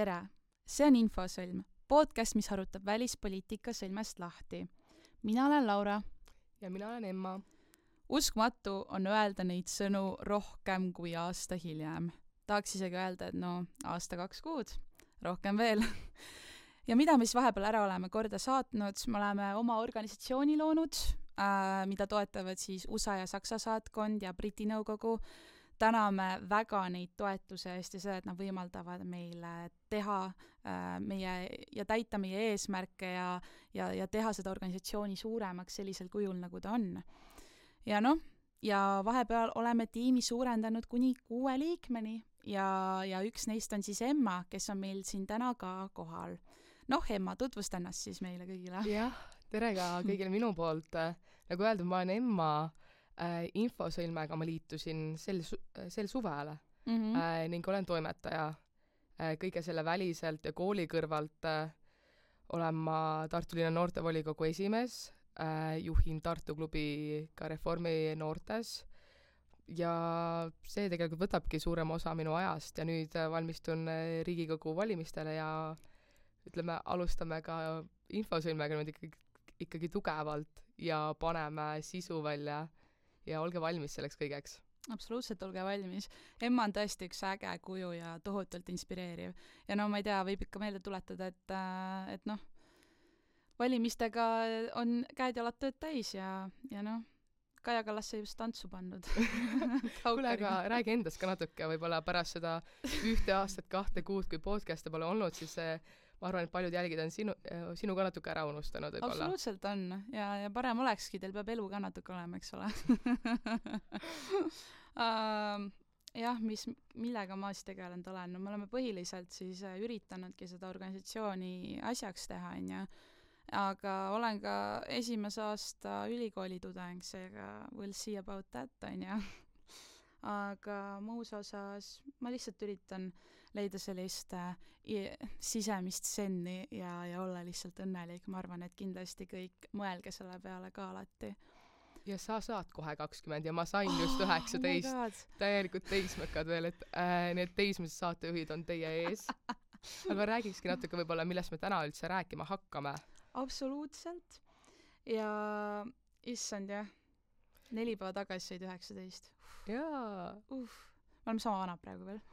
Tere! See on Infosõlm, podcast, mis arutab välispoliitika sõlmest lahti. Mina olen Laura. Ja mina olen Emma. Uskmatu on öelda neid sõnu rohkem kui aasta hiljem. Tahaks isegi öelda, et aasta 2 kuud, rohkem veel. Ja mida me siis vahepeal ära oleme korda saatnud? Me oleme oma organisatsiooni loonud, mida toetavad siis USA ja Saksa saatkond ja Briti nõukogu. Täname väga neid toetuse eest ja seda, et nad võimaldavad meile teha ja täita meie eesmärke ja teha seda organisatsiooni suuremaks sellisel kujul, nagu ta on. Ja vahepeal oleme tiimi suurendanud kuni 6 liikmeni ja üks neist on siis Emma, kes on meil siin täna ka kohal. Emma, tutvusta ennast siis meile kõigile. Jah, tere ka kõigile minu poolt. Nagu öeldud, ma olen Emma. Infosõlmega ma liitusin sel suvele ning olen toimetaja. Kõige selle väliselt ja kooli kõrvalt olen ma Tartu linna noortevolikogu esimees, juhin Tartu klubi ka Reformi noortes ja see tegelikult võtabki suurem osa minu ajast ja nüüd valmistun Riigikogu valimistele ja alustame ka Infosõlmega nüüd ikkagi tugevalt ja paneme sisu välja. Ja olge valmis selleks kõigeks. Absoluutselt, olge valmis. Emma on tõesti üks äge kuju ja tohutult inspireeriv. Ja ma ei tea, võib ikka meelde tuletada, et valimistega on käed jalad tööd täis ja Kaja Kallas sai just tantsu pannud. Kuule, aga räägi endast ka natuke, võib-olla pärast seda 1 aastat 2 kuud, kui podcast'e pole olnud, siis ma arvan, et paljud jälgid on sinu ka natuke ära unustanud. Võibolla. Absoluutselt on. Ja parem olekski, teil peab elu ka natuke olema, eks ole. Jah, millega ma siis tegelenud olen? Me oleme põhiliselt siis üritanudki seda organisatsiooni asjaks teha, aga olen ka esimese aasta ülikooli tudeng, seega we'll see about that, aga muus osas ma lihtsalt üritan leida sellist sisemist senni ja olla lihtsalt õnnelik. Ma arvan, et kindlasti kõik mõelge selle peale ka alati. Ja sa saad kohe 20 ja ma sain just 19. Täielikult teismekad veel, et need teismised saatejuhid on teie ees. Aga räägikski natuke võib-olla, millest me täna üldse rääkima hakkame. Absoluutselt. Ja issand, jah. 4 päeva tagasi said 19. Jaa. Me oleme sama vanad praegu veel.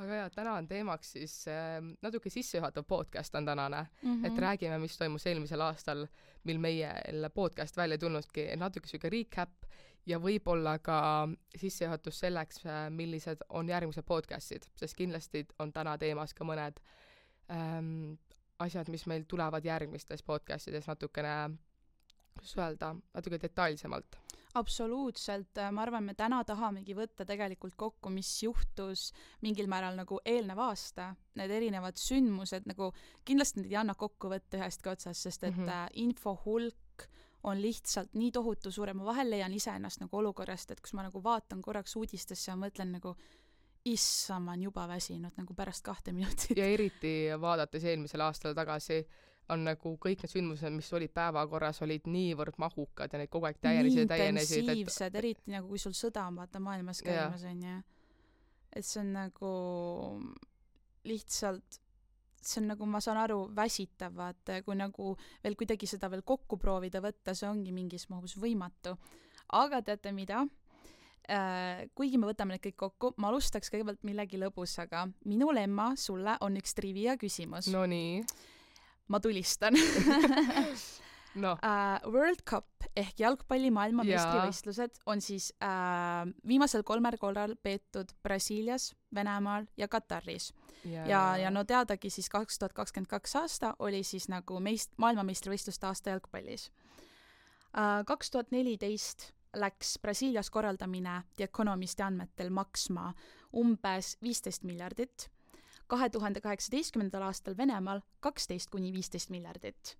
Aga jah, täna on teemaks siis natuke sissejuhatav podcast on tänane, et räägime, mis toimus eelmisel aastal, mil meie podcast välja tulnudki, natuke süge recap ja võib-olla ka sissejuhatus selleks, millised on järgmised podcastid, sest kindlasti on täna teemas ka mõned asjad, mis meil tulevad järgmistes podcastides natukene natuke detailsemalt. Absoluutselt. Ma arvan, me täna tahamegi võtta tegelikult kokku, mis juhtus mingil määral nagu eelneva aasta. Need erinevad sündmused, nagu kindlasti need ei anna kokku võtta ühestki otsast, sest et info hulk on lihtsalt nii tohutu suure. Ma vahel leian ise ennast nagu olukorrast, et kus ma nagu vaatan korraks uudistesse ja mõtlen nagu ma on juba väsinud nagu pärast 2 minutit. Ja eriti vaadates eelmisel aastal tagasi on nagu kõik need sündmused, mis olid päevakorras, olid niivõrd mahukad ja neid kogu aeg täienesid. Intensiivsed, eriti nagu kui sul sõda on vaata maailmas käimas on ja et see on nagu lihtsalt see on nagu, ma saan aru, väsitav, vaata, kui nagu veel kuidagi seda veel kokku proovida võtta, see ongi mingis mahus võimatu. Aga teate mida? Kuigi me võtame need kõik kokku, ma alustaks kõigepealt millegi lõbusaga. Minul, Emma, sulle on üks trivia küsimus. No nii. Ma tulistan. World Cup ehk jalgpalli maailmameistrivõistlused on siis viimasel 3 korral peetud Brasiilias, Venemaal ja Kataris. Ja teadagi siis 2022 aasta oli siis nagu maailmameistrivõistluste aasta jalgpallis. 2014 läks Brasiilias korraldamine The Economisti andmetel maksma umbes 15 miljardit, 2018. aastal Venemaal 12–15 miljardit.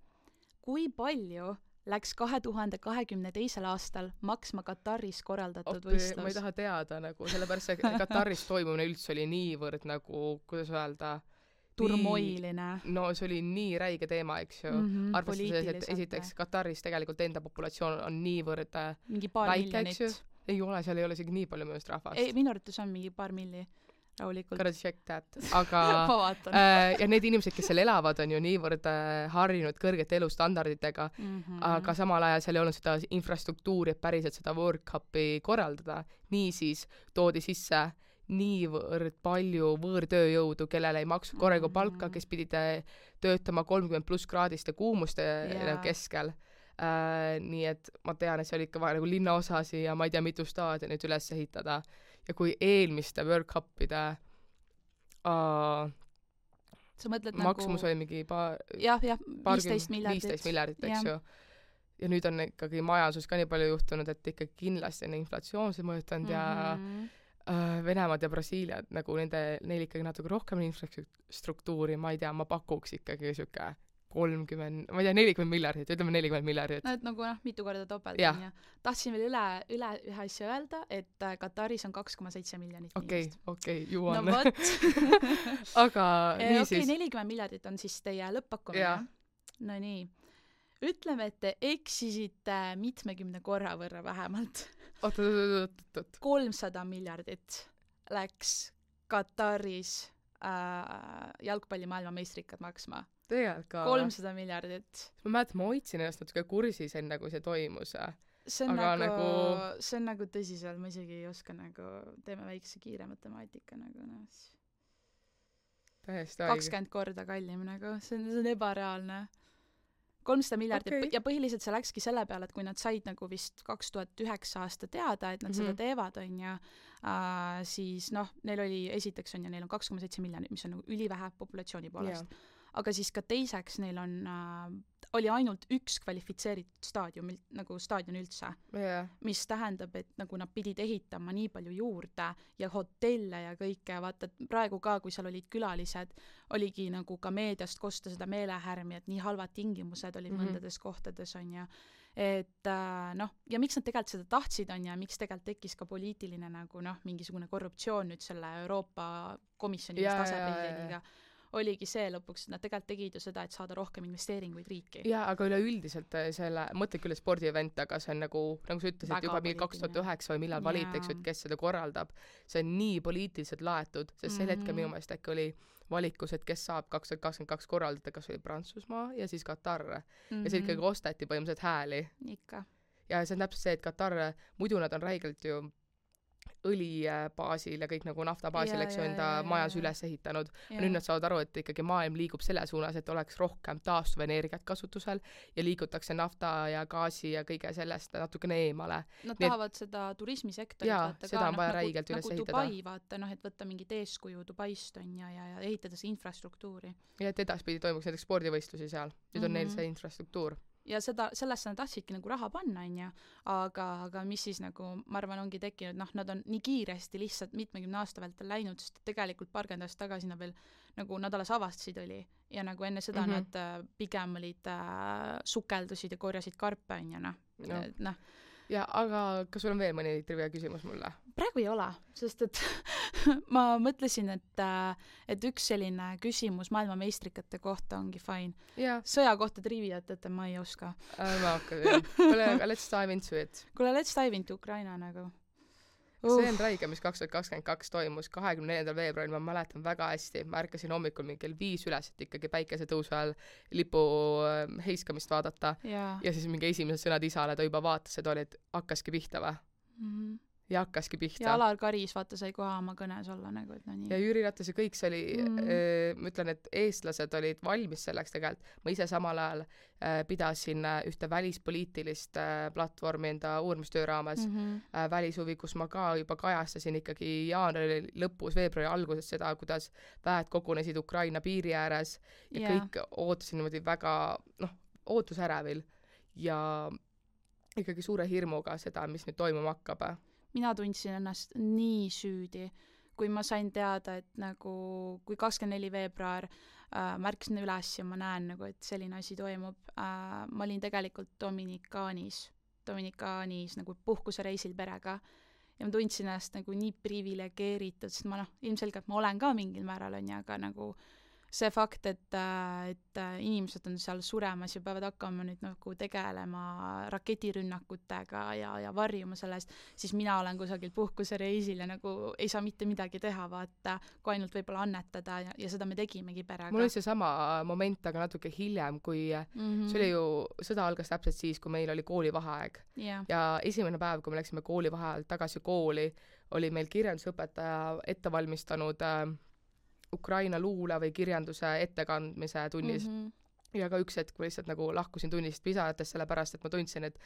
Kui palju läks 2022. aastal maksma Kataris korraldatud võistlus? Ma ei taha teada, nagu, sellepärast see Kataris toimumine üldse oli niivõrd nagu, kuidas öelda, turmoiline. No see oli nii räige teema, eks ju. Arvestades, et esiteks Kataris tegelikult enda populatsioon on niivõrd mingi paar väike, miljonit. Ei ole, seal ei ole isegi nii palju mõjust rahvast. Ei, minu arvates on mingi paar milli. rahulikult. Gotta check that. Aga ma vaatan. ja need inimesed, kes seal elavad, on ju niivõrd harjunud kõrgete elustandarditega, aga samal ajal seal ei olnud seda infrastruktuuri, et päriselt seda World Cupi korraldada. Niisiis toodi sisse niivõrd palju võõrtööjõudu, kellele ei maksu korraga palka, kes pidid töötama 30+ kraadiste kuumuste keskel. Nii et ma tean, et see oli ikka vaja nagu linnaosasi ja ma ei tea, mitu staadionit üles ehitada. Ja kui eelmiste World Cupide sa mõtled maksumus oli mingi 15 miljardit, eks ju. Ja nüüd on ikkagi majanduses ka nii palju juhtunud, et ikkagi kindlasti on inflatsioonse mõjutanud ja Venemaad ja Brasiiliad, nagu neil ikkagi natuke rohkem infrastruktuuri, ma ei tea, ma pakuks ikkagi siuke 30, ma ei tea, 40 miljardit, ütleme 40 miljardit. No, et nagu mitu korda topelt on ja tahtsin veel üle ühe asja öelda, et Kataris on 2,7 miljonit inimest. Okei, juuan. No vot. Aga niisiis. 40 miljardit on siis teie lõppakkumine. No nii. Ütleme, et te eksisite 70 korra võrra vähemalt. Oot. 300 miljardit läks Kataris jalgpalli maailmameistrikad maksma. Tegelikult ka. 300 miljardit. Ma mäletan, ma hoidsin ennast natuke kursis enne, kui see toimus. See on nagu tõsiselt, ma isegi ei oska nagu, teeme väikse kiire matemaatika nagu täiesti 20 korda kallim nagu, see on ebareaalne. 300 miljardit ja põhiliselt see läkski selle peale, et kui nad said nagu vist 2009 aasta teada, et nad seda teevad, on ja siis neil oli esiteks on ja neil on 2,7 miljonit, mis on nagu ülivähe populatsiooni poolest. Aga siis ka teiseks neil oli ainult üks kvalifitseeritud staadion üldse, mis tähendab, et nagu nad pidid ehitama nii palju juurde ja hotelle ja kõike, vaata, et praegu ka, kui seal olid külalised, oligi nagu ka meediast kosta seda meelehärmi, et nii halvad tingimused olid mõndades kohtades, on ja et ja miks nad tegelikult seda tahtsid, on ja miks tegelikult tekkis ka poliitiline nagu mingisugune korruptsioon nüüd selle Euroopa komisjoni asepresidendiga. Oligi see lõpuks, et nad tegelikult tegid ju seda, et saada rohkem investeeringuid riiki. Jaa, aga üleüldiselt selle, mõtle küll spordievent, aga see on nagu sa ütlesid, juba 2009 või millal valitaks, et kes seda korraldab. See on nii poliitiliselt laetud, sest sel hetkel minu meelest äkki oli valikus, et kes saab 2022 korraldada, kas oli Prantsusmaa ja siis Katar. Ja see ikkagi ostati põhimõtteliselt hääli. Ikka. Ja see on täpselt see, et Katar, muidu nad on räigelt ju õlibaasil ja kõik nagu naftabaasil, eks ju, enda majas üles ehitanud. Nüüd nad saavad aru, et ikkagi maailm liigub selle suunas, et oleks rohkem taastuvenergiat kasutusel ja liigutakse nafta ja gaasi ja kõige sellest natukene eemale. Nad tahavad seda turismisektorit vaata seda on vaja räigelt üles ehitada. Dubai vaata, et võtta mingit eeskuju Dubaist on ja ehitada see infrastruktuuri. Ja et edaspidi toimuks näiteks spordivõistlusi seal. Nüüd on neil see infrastruktuur. Ja sellesse nad tahtsidki nagu raha panna, on ja, aga mis siis nagu, ma arvan, ongi tekkinud, nad on nii kiiresti lihtsalt 70 aasta vältel läinud, sest tegelikult paarkümmend aastat tagasi nad veel, nagu nad alles avastasid oli ja nagu enne seda nad pigem olid sukeldusid ja korjasid karpe, on ja Ja, aga kas sul on veel mõni trivia küsimus mulle? Praegu ei ole, sest et ma mõtlesin, et üks selline küsimus maailmameistrikate kohta ongi fine. Sõja kohta triviat, et ma ei oska. Ma hakkan. Kuule, let's dive into it. Kuule, let's dive into Ukraina nagu. See on räige, mis 2022 toimus 24. veebruaril, ma mäletan väga hästi. Ma ärkasin hommikul mingi 5 üles, et ikkagi päikesetõusu ajal lipu heiskamist vaadata. Ja siis mingi esimesed sõnad isale, ta juba vaatas, et oli, et hakkaski pihta või? Ja hakkaski pihta. Ja Alar Karis, vaata, sai koha oma kõnes olla nagu, et nii. Ja Jüri Ratas ja kõik see oli, ma ütlen, et eestlased olid valmis selleks tegelikult. Ma ise samal ajal pidasin ühte välispoliitilist platvormi enda uurimustöö raames välishuvi, kus ma ka juba kajastasin ikkagi jaanuari lõpus, veebruari alguses seda, kuidas väed kogunesid Ukraina piiri ääres ja kõik ootasin niimoodi väga, ootusärevil ja ikkagi suure hirmuga seda, mis nüüd toimuma hakkab. Mina tundsin ennast nii süüdi, kui ma sain teada, et nagu, kui 24 veebruar märkasin üles ja ma näen nagu, et selline asi toimub. Ma olin tegelikult Dominikaanis nagu puhkusereisil perega ja ma tundsin ennast nagu nii privilegeeritud, sest ma ilmselgelt ma olen ka mingil määral on ja, aga nagu see fakt, et inimesed on seal suremas ja peavad hakkama nüüd nagu tegelema raketirünnakutega ja varjuma sellest, siis mina olen kusagil puhkusereisil ja nagu ei saa mitte midagi teha, vaata, kui ainult võib-olla annetada ja seda me tegimegi perega. Mul oli see sama moment, aga natuke hiljem, kui see oli ju, sõda algas täpselt siis, kui meil oli koolivaheaeg. Ja esimene päev, kui me läksime koolivaheajalt tagasi kooli, oli meil kirjandusõpetaja ette valmistanud Ukraina luule või kirjanduse ettekandmise tunnis. Ja ka üks hetk ma lihtsalt nagu lahkusin tunnist pisarates, sellepärast, et ma tundsin, et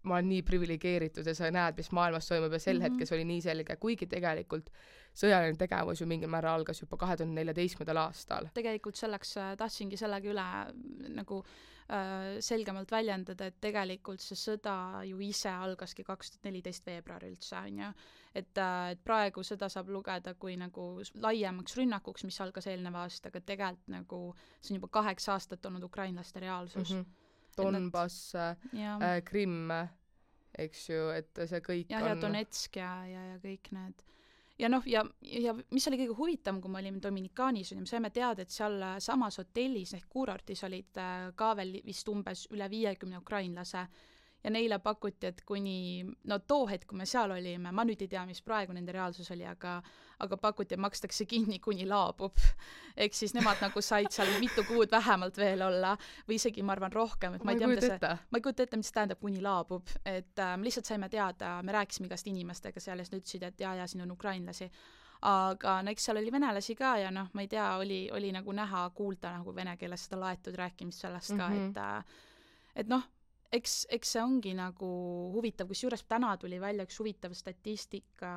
ma olen nii privilegeeritud ja sa näed, mis maailmas toimub ja sel hetkes oli nii selge, kuigi tegelikult sõjaline tegevus ju mingil määral algas juba 2014. aastal. Tegelikult selleks tahtsingi sellega üle nagu selgemalt väljendada, et tegelikult see sõda ju ise algaski 2014 veebruaril üldse, on ju. Et praegu seda saab lugeda kui nagu laiemaks rünnakuks, mis algas eelneva aastaga, tegelikult nagu see on juba 8 aastat olnud ukrainlaste reaalsus. Donbass, Krimm, eks ju, et see kõik ja, on... Ja Donetsk ja kõik need. Ja noh, ja mis oli kõige huvitavam, kui me olime Dominikaanis, me saime teada, et seal samas hotellis ehk kuurortis olid ka veel vist umbes üle 50 ukrainlase ja neile pakuti, et kuni, no too hetk, kui me seal olime, ma nüüd ei tea, mis praegu nende reaalsus oli, aga pakuti, et makstakse kinni, kuni laabub. Ehk siis nemad nagu said seal mitu kuud vähemalt veel olla või isegi, ma arvan, rohkem. Et ma ei kujuta ette, mis tähendab, kuni laabub. Et me lihtsalt saime teada, me rääkisime igast inimestega seal ja ütlesid, et ja, siin on ukrainlasi. Aga no eks seal oli venelasi ka ja noh, ma ei tea, oli nagu näha, kuulda nagu vene keeles seda laetud rääkimist sellest ka, et noh, eks see ongi nagu huvitav, kus juures täna tuli välja üks huvitav statistika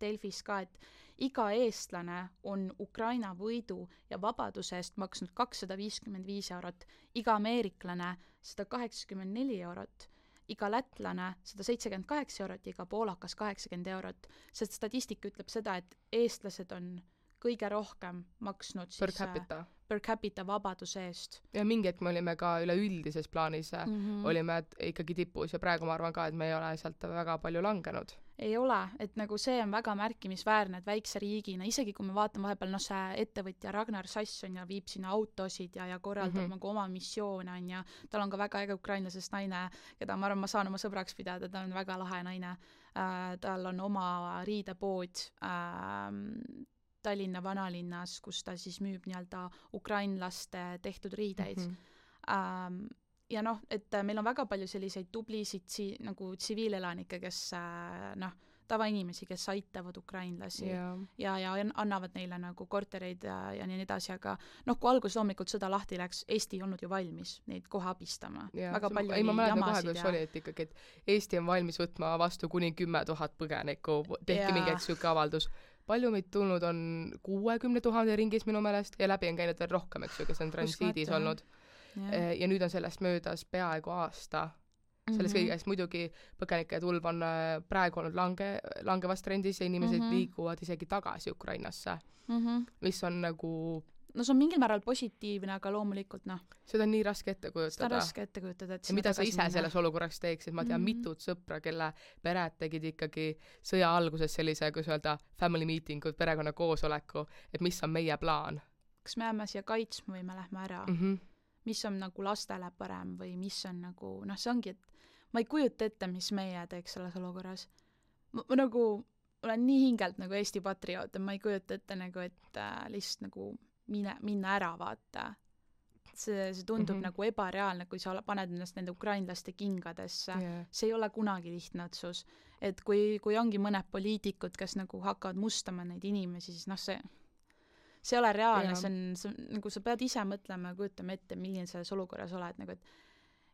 Delfis ka, et iga eestlane on Ukraina võidu ja vabaduse eest maksnud 255 eurot, iga ameeriklane 184 eurot, iga lätlane 178 eurot ja iga poolakas 80 eurot. See statistika ütleb seda, et eestlased on kõige rohkem maksnud per capita vabaduse eest. Ja mingi hetk me olime ka üleüldises plaanis, olime ikkagi tipus ja praegu ma arvan ka, et me ei ole sealt väga palju langenud. Ei ole, et nagu see on väga märkimisväärne, et väikse riigina, isegi kui me vaatame vahepeal, no see ettevõtja Ragnar Sasson ja viib sinna autosid ja korraldab nagu oma missioone on ja tal on ka väga äge ukrainlasest naine, keda ma arvan, ma saan oma sõbraks pidada, ta on väga lahe naine. Tal on oma riidepood Tallinna vanalinnas, kus ta siis müüb nii-öelda ukrainlaste tehtud riideid. Ja noh, et meil on väga palju selliseid tublisid nagu tsiviilelanikke, kes tavainimesi, kes aitavad ukrainlasi ja annavad neile nagu kortereid ja nii edasi, aga noh, kui algus loomulikult sõda lahti läks, Eesti ei olnud ju valmis neid kohe abistama. Väga palju oli jamasid ja... Oli, et ikkagi, et Eesti on valmis võtma vastu kuni 10 000 põgenikku, tehti mingi siuke avaldus. Palju meid tulnud on 60 000 ringis minu meelest ja läbi on käinud veel rohkem, eks ju, kes on transiidis olnud. Ja nüüd on sellest möödas peaaegu aasta. Selles kõigest muidugi põgenike tulv on praegu olnud langevas trendis ja inimesed liiguvad isegi tagasi Ukrainasse, mis on nagu... No see on mingil määral positiivne, aga loomulikult noh. Seda on nii raske ette kujutada. Seda on raske ette kujutada, et ja mida sa ise selles olukorras teeksid? Ma tean mitut sõpra, kelle pered tegid ikkagi sõja alguses sellise, kus öelda, family meeting, perekonna koosoleku, et mis on meie plaan. Kas me jääme siia kaitsma või me lähme ära? Mis on nagu lastele parem või mis on nagu, noh see ongi, et ma ei kujuta ette, mis meie teeks selles olukorras. Ma nagu olen nii hingelt nagu Eesti patrioot, ma ei kujuta ette nagu, et lihtsalt nagu minna ära vaata. See tundub nagu ebareaalne, kui sa paned ennast nende ukrainlaste kingadesse. See ei ole kunagi lihtne otsus. Et kui ongi mõned poliitikud, kes nagu hakkavad mustama neid inimesi, siis noh see ei ole reaalne, see on nagu sa pead ise mõtlema ja kujutama ette, milline selles olukorras oled, nagu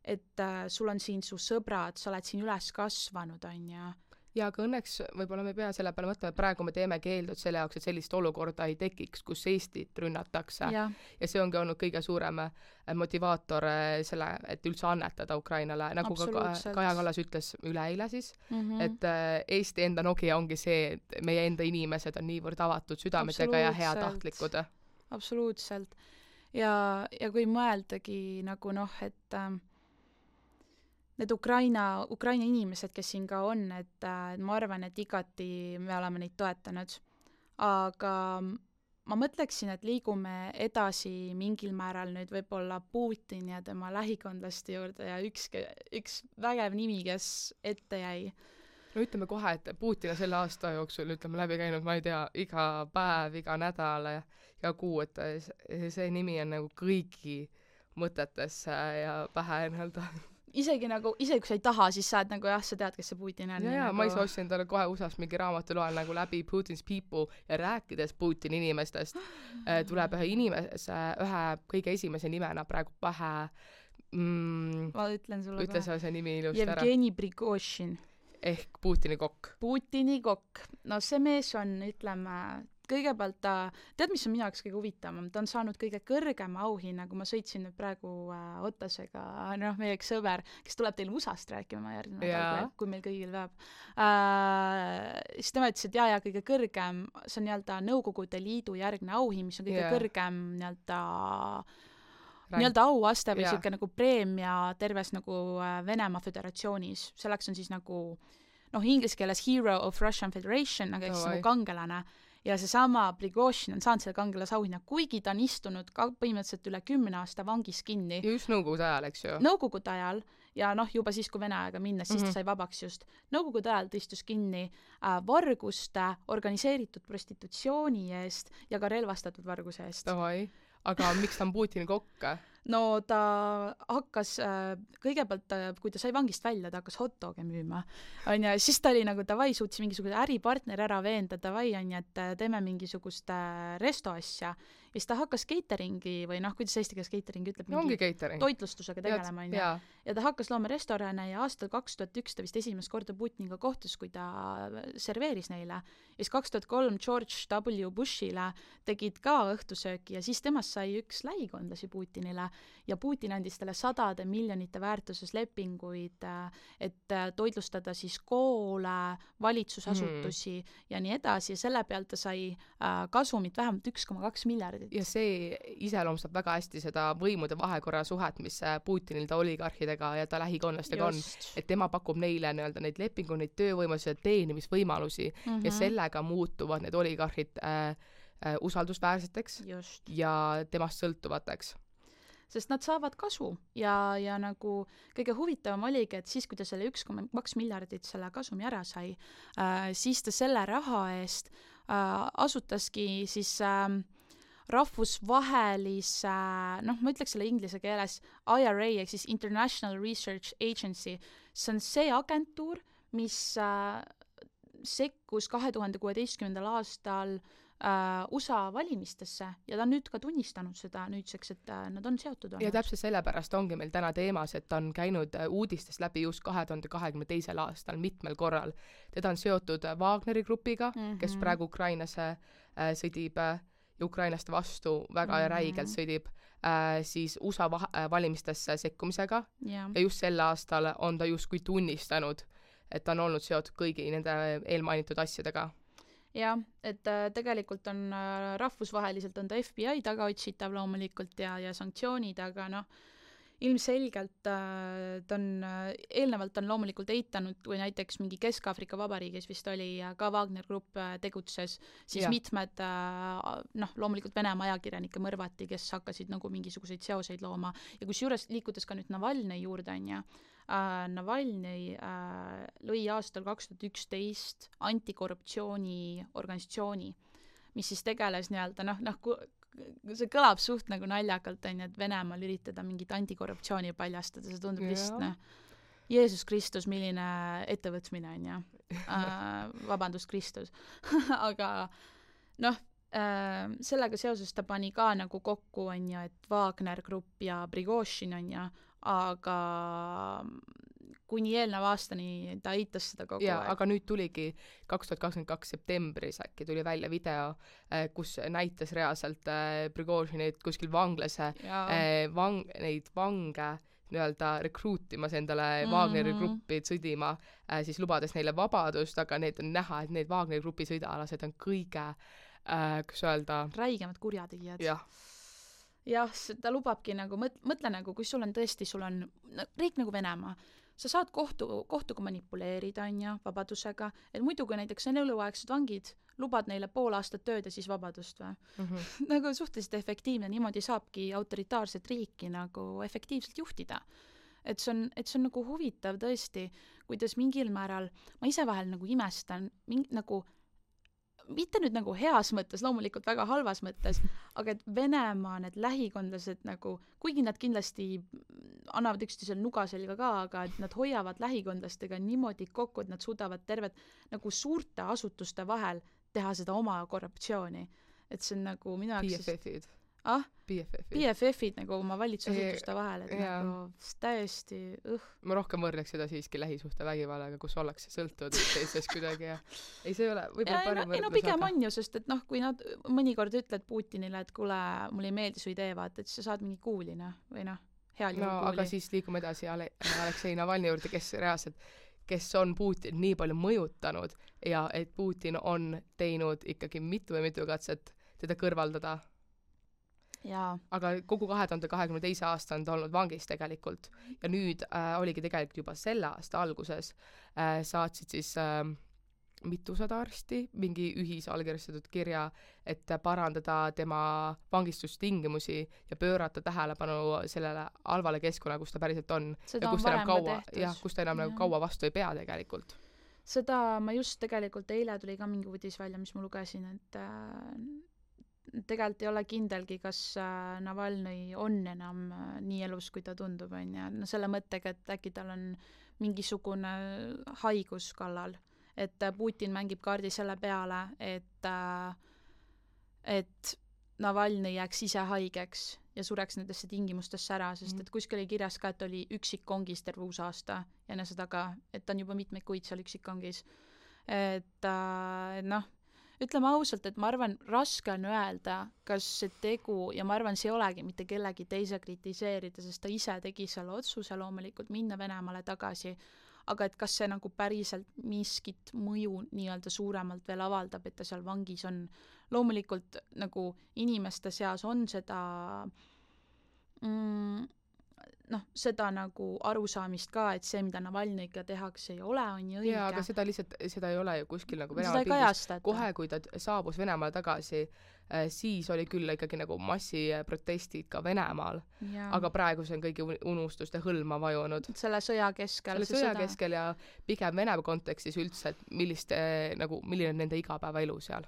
et sul on siin su sõbrad, sa oled siin üles kasvanud, on ja ja aga õnneks võib-olla me pea selle peale mõtlema, et praegu me teeme keeldud selle jaoks, et sellist olukorda ei tekiks, kus Eestit rünnatakse. Ja see ongi olnud kõige suurem motivaator selle, et üldse annetada Ukrainale. Nagu ka Kaja Kallas ütles üleeile siis, et Eesti enda Nokia ongi see, et meie enda inimesed on niivõrd avatud südametega ja heatahtlikud. Absoluutselt. Ja kui mõeldagi nagu noh, et need Ukraina inimesed, kes siin ka on, et ma arvan, et igati me oleme neid toetanud. Aga ma mõtleksin, et liigume edasi mingil määral nüüd võib-olla Putini ja tema lähikondlaste juurde ja üks vägev nimi, kes ette jäi. No ütleme kohe, et Putin on selle aasta jooksul, ütleme, läbi käinud, ma ei tea, iga päev, iga nädal ja iga kuu, et see nimi on nagu kõigi mõtetesse ja pähe nii-öelda. Isegi kui sa ei taha, siis sa oled nagu jah, sa tead, kes see Putin on. Ja ma ise ostsin talle kohe USA-s mingi raamatu loen nagu läbi Putin's People ja rääkides Putini inimestest tuleb ühe kõige esimese nimena praegu pähe ma ütlen sulle ütle sa see nimi ilusti ära. Jevgeni Prigozhin. Ehk Putini kokk. Putini kokk. No see mees on, ütleme, kõigepealt tead, mis on minu jaoks kõige huvitavam? Ta on saanud kõige kõrgema auhinna, kui ma sõitsin nüüd praegu Otasega, meie üks sõber, kes tuleb teile USA-st rääkima järgmine nädal, kui meil kõigil veab. Siis tema ütles, et kõige kõrgem, see on nii-öelda Nõukogude Liidu järgne auhind, mis on kõige kõrgem nii-öelda auaste või siuke nagu preemia terves nagu Venemaa Föderatsioonis. Selleks on siis nagu inglise keeles Hero of Russian Federation, aga eks nagu kangelane. Ja seesama Prigozhin on saanud selle kangelase auhinna, kuigi ta on istunud põhimõtteliselt üle 10 aasta vangis kinni. Ja just Nõukogude ajal, eks ju? Nõukogude ajal ja juba siis, kui Vene aega minnes, siis ta sai vabaks just. Nõukogude ajal ta istus kinni varguste, organiseeritud prostitutsiooni eest ja ka relvastatud varguse eest. Aga miks ta on Putini kokk? No ta hakkas, kõigepealt, kui ta sai vangist välja, ta hakkas hotdoge müüma. Siis ta oli nagu davai, suutis mingisuguse äripartner ära veenda, davai, et teeme mingisugust restoasja. Ja siis ta hakkas cateringi või kuidas eesti keeles catering ütleb, toitlustusega tegelema. Ja ta hakkas looma restorane ja aastal 2001 ta vist esimest korda Putiniga kohtus, kui ta serveeris neile. Ja siis 2003 George W. Bushile tegid ka õhtusööki ja siis temast sai üks lähikondlasi Putinile ja Putin andis talle sadade miljonite väärtuses lepinguid, et toitlustada siis koole, valitsusasutusi ja nii edasi ja selle pealt ta sai kasumit vähemalt 1,2 miljardit. Ja see iseloomustab väga hästi seda võimude vahekorra suhet, mis Putinil ta oligarhidega ja ta lähikonnastega on, et tema pakub neile nii-öelda neid lepingu, neid töövõimalusi, teenimisvõimalusi ja sellega muutuvad need oligarhid usaldusväärseteks ja temast sõltuvateks. Sest nad saavad kasu ja nagu kõige huvitavam oligi, et siis, kui ta selle 1,2 miljardit selle kasumi ära sai, siis ta selle raha eest asutaski siis rahvusvahelise, ma ütleks selle inglise keeles IRA, ehk siis International Research Agency. See on see agentuur, mis sekkus 2016. aastal USA valimistesse ja ta on nüüd ka tunnistanud seda nüüdseks, et nad on seotud olnud. Ja täpselt sellepärast ongi meil täna teemas, et ta on käinud uudistest läbi just 2022. aastal mitmel korral. Teda on seotud Wagneri grupiga, kes praegu Ukrainasse sõdib Ukrainaste vastu väga räigelt sõdib, siis USA valimistesse sekkumisega ja just sel aastal on ta justkui tunnistanud, et ta on olnud seotud kõigi nende eelmainitud asjadega. Jah, et tegelikult on rahvusvaheliselt on ta FBI tagaotsitav loomulikult ja sanktsioonid, aga ilmselgelt ta on, eelnevalt on loomulikult eitanud, kui näiteks mingi Kesk-Aafrika Vabariigis vist oli ka Wagner Grupp tegutses, siis mitmed loomulikult Venemaa ajakirjanike mõrvati, kes hakkasid nagu mingisuguseid seoseid looma ja kusjuures liikudes ka nüüd Navalnõi juurde Navalnõi lõi aastal 2011 antikorruptsiooni organisatsiooni, mis siis tegeles nii-öelda, see kõlab suht nagu naljakalt, et Venemaal üritada mingit antikorruptsiooni paljastada, see tundub lihtsalt, Jeesus Kristus, milline ettevõtmine on ja vabandust Kristus. Aga sellega seoses ta pani ka nagu kokku, et Wagner Grupp ja Prigozhin aga kuni eelneva aastani ta eitas seda kogu aeg. Aga nüüd tuligi 2022 septembris äkki tuli välja video, kus näitas reaalselt Prigozhinit kuskil vanglase neid vange nii-öelda rekruutimas endale Wagneri gruppi sõdima, siis lubades neile vabadust, aga need on näha, et need Wagneri grupi sõidalased on kõige, kus öelda, räigemad kurjategijad. Jah, ta lubabki nagu, mõtle nagu, kui sul on riik nagu Venemaa, sa saad kohtuga manipuleerida, on ju, vabadusega, et muidu kui näiteks on eluaegsed vangid, lubad neile pool aastat tööd ja siis vabadust või? Nagu suhteliselt efektiivne, niimoodi saabki autoritaarset riiki nagu efektiivselt juhtida. Et see on nagu huvitav tõesti, kuidas mingil määral, ma ise vahel nagu imestan, nagu mitte nüüd nagu heas mõttes, loomulikult väga halvas mõttes, aga et Venemaa need lähikondlased nagu, kuigi nad kindlasti annavad üksteisel nuga selga ka, aga et nad hoiavad lähikondlastega niimoodi kokku, et nad suudavad terved nagu suurte asutuste vahel teha seda oma korruptsiooni. Et see on nagu minu jaoks... BFF-id. BFF-id nagu oma valitsusasutuste vahel, et nagu täiesti Ma rohkem võrdleks seda siiski lähisuhte vägivallaga, kus ollakse sõltuvad teisest kuidagi ja ei, see ei ole võib-olla parim võrdlus. No pigem on ju, sest et noh, kui nad mõnikord ütled Putinile, et kuule, mulle ei meeldi su idee, vaata, et sa saad mingi kuulina või noh, heal juhul kuuli. Aga siis liigume edasi Aleksei Navalnõi juurde, kes on Putin nii palju mõjutanud ja et Putin on teinud ikkagi mitu katset teda kõrvaldada. Jaa. Aga kogu 2022. aasta on ta olnud vangis tegelikult ja nüüd oligi tegelikult juba selle aasta alguses saatsid siis mitusada arsti mingi ühisallkirjastatud kirja, et parandada tema vangistustingimusi ja pöörata tähelepanu sellele halvale keskkonna, kus ta päriselt on. Seda ja kus ta enam nagu kaua vastu ei pea tegelikult. Seda ma just tegelikult eile tuli ka mingi uudis välja, mis ma lugesin, et tegelikult ei ole kindelgi, kas Navalnõi on enam nii elus, kui ta tundub, on ja no selle mõttega, et äkki tal on mingisugune haigus kallal, et Putin mängib kaardi selle peale, et Navalnõi jääks ise haigeks ja sureks nendesse tingimustesse ära, sest et kuskil oli kirjas ka, et oli üksikkongis terve uus aasta ja enne seda ka, et ta on juba mitmeid kuid seal üksikkongis. Et noh, ütleme ausalt, et ma arvan, raske on öelda, kas see tegu, ja ma arvan, see ei olegi mitte kellegi teise kritiseerida, sest ta ise tegi selle otsuse loomulikult minna Venemaale tagasi, aga et kas see nagu päriselt miskit mõju nii-öelda suuremalt veel avaldab, et ta seal vangis on. Loomulikult nagu inimeste seas on seda seda nagu arusaamist ka, et see, mida Navalnõiga tehakse, ei ole, on ju õige. Jaa, aga seda ei ole ju kuskil nagu Venemaa pildis. Kohe, kui ta saabus Venemaale tagasi, siis oli küll ikkagi nagu massiprotestid ka Venemaal. Aga praegu see on kõigi unustuste hõlma vajunud. Selle sõja keskel. Keskel ja pigem Venemaa kontekstis üldse, et milline on nende igapäevaelu seal.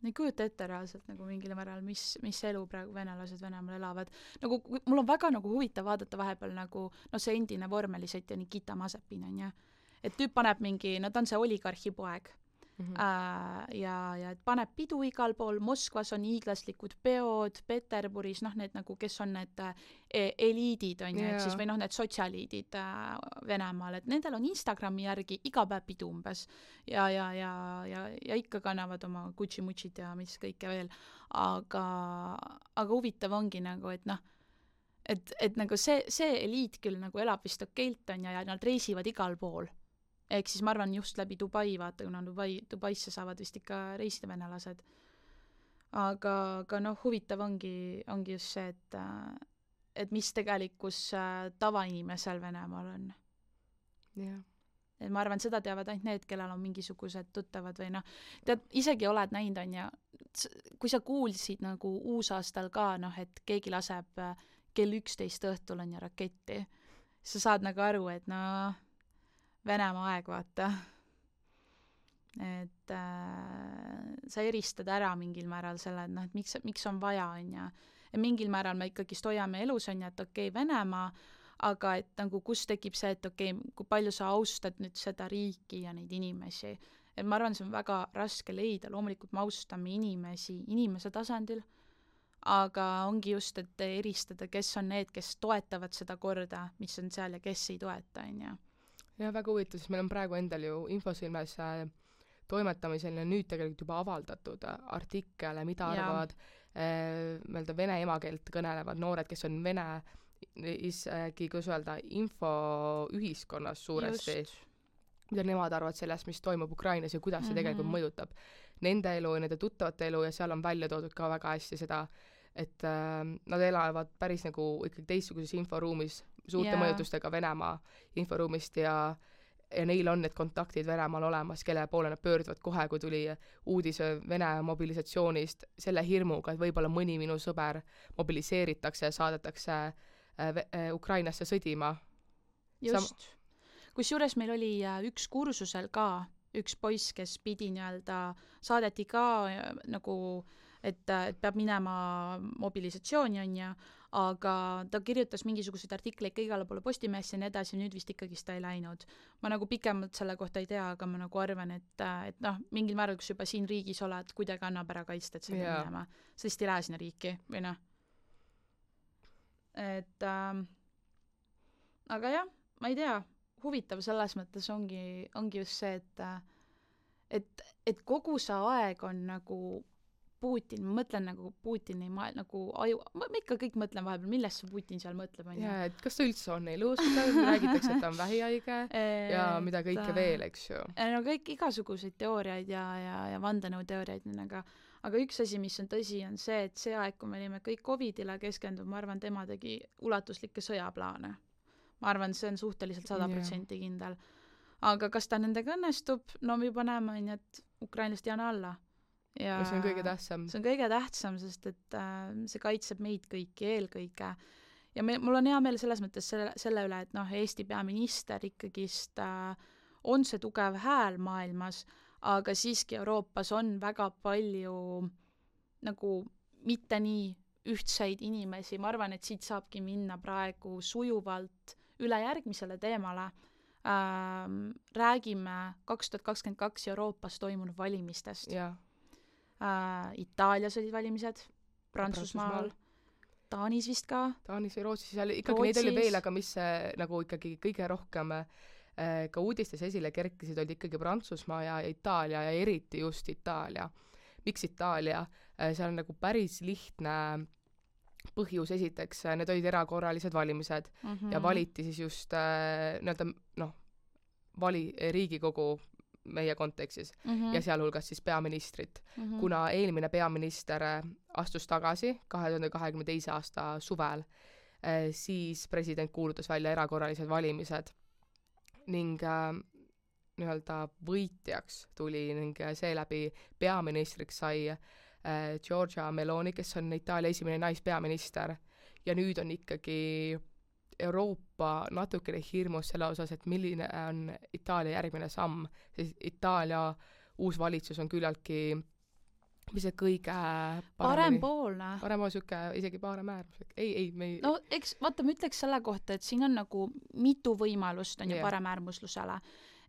Ei kujuta ette reaalselt nagu mingil määral, mis elu praegu venelased Venemaal elavad. Nagu, mul on väga nagu huvitav vaadata vahepeal nagu, see endine vormelisõitja Nikita Mazepin on ja, et tüüp paneb mingi, ta on see oligarhi poeg. Ja et paneb pidu igal pool, Moskvas on hiiglaslikud peod, Peterburis, need nagu, kes on need eliidid on ja, siis, või need sotsialiidid Venemaal, et nendel on Instagrami järgi iga päev pidu umbes ja ikka kannavad oma Gucci-mutšid ja mis kõike veel, aga huvitav ongi nagu, et et nagu see eliit küll nagu elab vist okeilt on ja nad reisivad igal pool. Ehk siis ma arvan just läbi Dubai, vaata, kuna Dubaisse saavad vist ikka reisida venelased. Aga huvitav ongi just see, et mis tegelikkus tavainimesel Venemaal on. Yeah. Et ma arvan, seda teavad ainult need, kellel on mingisugused tuttavad või tead, isegi oled näinud on ja kui sa kuulsid nagu uusaastal ka, et keegi laseb kell 11 õhtul on ja raketti, sa saad nagu aru, et Venemaa aeg, vaata. Et sa eristad ära mingil määral selle, et miks on vaja, on ja mingil määral me ikkagi hoiame elus, on ja, et okei, Venemaa, aga et nagu kus tekib see, et okei, kui palju sa austad nüüd seda riiki ja neid inimesi. Et ma arvan, see on väga raske leida, loomulikult me austame inimese tasandil, aga ongi just, et eristada, kes on need, kes toetavad seda korda, mis on seal ja kes ei toeta, on ja. Ja väga huvitav, sest meil on praegu endal ju Infosilmes toimetamisel ja nüüd tegelikult juba avaldatud artikele, mida arvavad vene emakeelt kõnelevad noored, kes on vene kuidas öelda, infoühiskonnas suuresti, mida nemad arvavad sellest, mis toimub Ukrainas ja kuidas see tegelikult mõjutab nende elu ja nende tuttavate elu ja seal on välja toodud ka väga hästi seda, et nad elavad päris nagu ikkagi teistsuguses inforuumis, suurte mõjutustega Venemaa inforuumist ja neil on need kontaktid Venemaal olemas, kelle poole nad pöörduvad kohe, kui tuli uudis Vene mobilisatsioonist selle hirmuga, et võib-olla mõni minu sõber mobiliseeritakse ja saadetakse Ukrainasse sõdima. Just. Kusjuures meil oli üks kursusel ka üks poiss, kes pidi saadeti ka nagu, et peab minema mobilisatsiooni, on ja, aga ta kirjutas mingisuguseid artikleid ka igale poole Postimehesse ja nii edasi, nüüd vist ikkagi ta ei läinud. Ma nagu pikemalt selle kohta ei tea, aga ma nagu arvan, et mingil määral, kus juba siin riigis oled, kuidagi annab ära kaitsta, et sa pead minema. Sa lihtsalt ei lähe sinna riiki, või noh. Et aga jah, ma ei tea, huvitav selles mõttes ongi just see, et kogu see aeg on nagu Putin, ma mõtlen nagu Putini nagu aju, ma ikka kõik mõtlen vahepeal, millest see Putin seal mõtleb, on ju. Jaa, et kas ta üldse on elus, räägitakse, et ta on vähihaige ja mida kõike veel, eks ju. No kõik igasuguseid teooriaid ja vandenõuteooriaid, aga üks asi, mis on tõsi, on see, et see aeg, kui me olime kõik COVIDile keskendunud, ma arvan, tema tegi ulatuslikke sõjaplaane. Ma arvan, see on suhteliselt 100% kindel. Aga kas ta nendega õnnestub? No me juba näeme, et ukrainlast jääna alla. Ja see on kõige tähtsam. See on kõige tähtsam, sest et see kaitseb meid kõiki eelkõige. Ja mul on hea meel selles mõttes selle üle, et Eesti peaminister ikkagist on see tugev hääl maailmas, aga siiski Euroopas on väga palju nagu mitte nii ühtseid inimesi. Ma arvan, et siit saabki minna praegu sujuvalt üle järgmisele teemale. Räägime 2022 Euroopas toimunud valimistest. Jaa. Itaalias olid valimised, Prantsusmaal, Taanis vist ka. Taanis või Rootsis, ikkagi neid oli veel, aga mis nagu ikkagi kõige rohkem ka uudistes esile kerkisid, olid ikkagi Prantsusmaa ja Itaalia ja eriti just Itaalia. Miks Itaalia? Seal on nagu päris lihtne põhjus esiteks, need olid erakorralised valimised ja valiti siis just Riigikogu meie kontekstis ja sealhulgas siis peaministrit. Kuna eelmine peaminister astus tagasi 2022. aasta suvel, siis president kuulutas välja erakorralised valimised ning võitjaks tuli ning seeläbi peaministriks sai Giorgia Meloni, kes on Itaalia esimene naispeaminister ja nüüd on ikkagi Euroopa natukene hirmus selle osas, et milline on Itaalia järgmine samm, sest Itaalia uus valitsus on küllaltki mis see kõige parempoolne. Parempool süke, isegi paremäärmuslik. No eks, vaata, ma ütleks selle kohta, et siin on nagu mitu võimalust on ju paremäärmuslusele.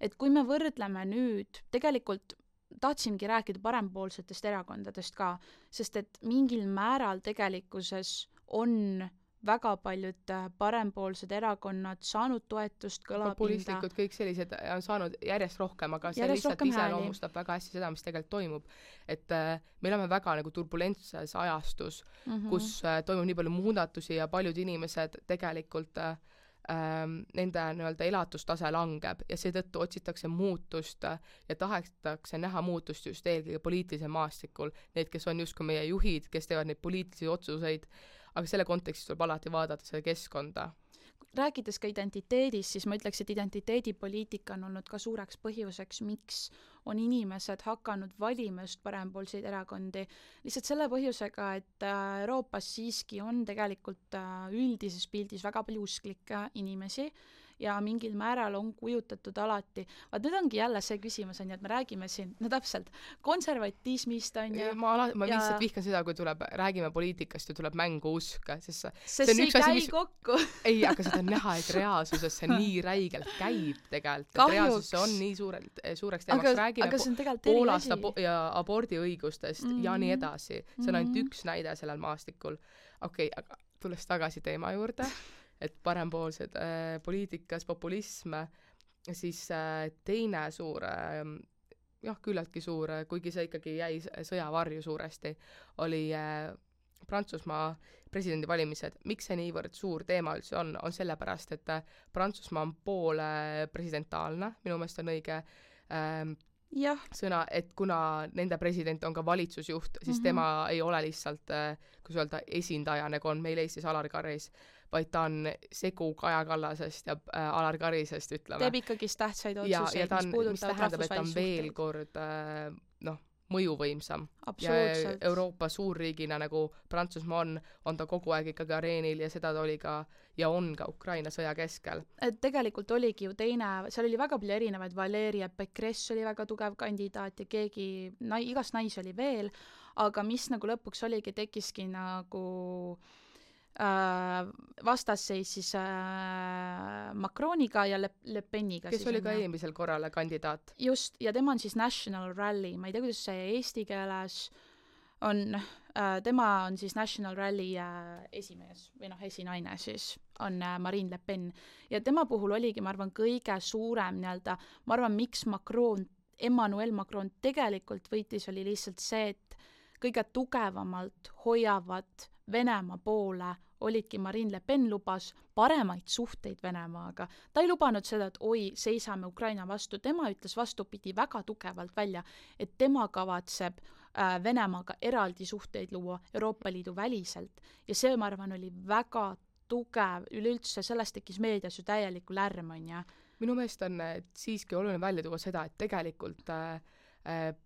Et kui me võrdleme nüüd, tegelikult tahtsimgi rääkida parempoolsetest erakondadest ka, sest et mingil määral tegelikkuses on väga paljud parempoolsed erakonnad saanud toetust, kõlapinda. Populistlikud, kõik sellised on saanud järjest rohkem, aga see lihtsalt iseloomustab väga hästi seda, mis tegelikult toimub. Et me oleme väga nagu turbulentses ajastus, kus toimub nii palju muudatusi ja paljud inimesed tegelikult nende elatustase langeb ja seetõttu otsitakse muutust ja tahetakse näha muutust just eelkõige poliitilisel maastikul. Need, kes on justkui meie juhid, kes teevad neid poliitilisi otsuseid, aga selle kontekstis tuleb alati vaadata selle keskkonda. Rääkides ka identiteedist, siis ma ütleks, et identiteedipoliitika on olnud ka suureks põhjuseks, miks on inimesed hakanud valima just parempoolseid erakondi. Lihtsalt selle põhjusega, et Euroopas siiski on tegelikult üldises pildis väga palju usklikke inimesi ja mingil määral on kujutatud alati. Vaat nüüd ongi jälle see küsimus, on ju, et me räägime siin, no täpselt, konservatismist on ju. Ma lihtsalt vihkan seda, kui räägime poliitikast ja tuleb mängu usk. Sest see ei käi kokku. Ei, aga seda on näha, et reaalsuses see nii räigelt käib tegelikult. Et reaalsus on nii suureks teemaks. Räägime Poolast ja abordiõigustest ja nii edasi. See on ainult üks näide sellel maastikul. Okei, aga tulles tagasi teema juurde, et parempoolsed poliitikas, populism, siis teine suur, küllaltki suur, kuigi see ikkagi jäi sõjavarju suuresti, oli Prantsusmaa presidendivalimised. Miks see niivõrd suur teema üldse on sellepärast, et Prantsusmaa on poole presidentaalne, minu meelest on õige sõna, et kuna nende president on ka valitsusjuht, siis tema ei ole lihtsalt, kus öelda, esindaja, nagu on meil Eestis Alar Karis, vaid ta on segu Kaja Kallasest ja Alar Karisest, ütleme. Teeb ikkagist tähtsaid otsuseid, mis puudutavad rahvusvahelisi veel kord mõjuvõimsam. Ja Euroopa suurriigina nagu Prantsusmaa on ta kogu aeg ikkagi areenil ja seda ta oli ka ja on ka Ukraina sõja keskel. Et tegelikult oligi ju seal oli väga palju erinevaid, Valeria Pécresse oli väga tugev kandidaat ja keegi, igast naisi oli veel, aga mis nagu lõpuks oligi, tekkiski nagu vastasseis siis Macroniga ja Le Peniga. Kes oli ka eelmisel korral kandidaat. Just, ja tema on siis National Rally, ma ei tea, kuidas see eesti keeles on, tema on siis National Rally esimees või esinaine siis, on Marine Le Pen. Ja tema puhul oligi, ma arvan, kõige suurem ma arvan, miks Emmanuel Macron tegelikult võitis, oli lihtsalt see, et kõige tugevamalt hoiavad Venemaa poole olidki Marine Le Pen lubas paremaid suhteid Venemaaga. Ta ei lubanud seda, et seisame Ukraina vastu. Tema ütles vastupidi väga tugevalt välja, et tema kavatseb Venemaaga eraldi suhteid luua Euroopa Liidu väliselt. Ja see, ma arvan, oli väga tugev. Üleüldse sellest tekkis meedias ju täieliku lärm, on ja. Minu meelest on siiski oluline välja tuua seda, et tegelikult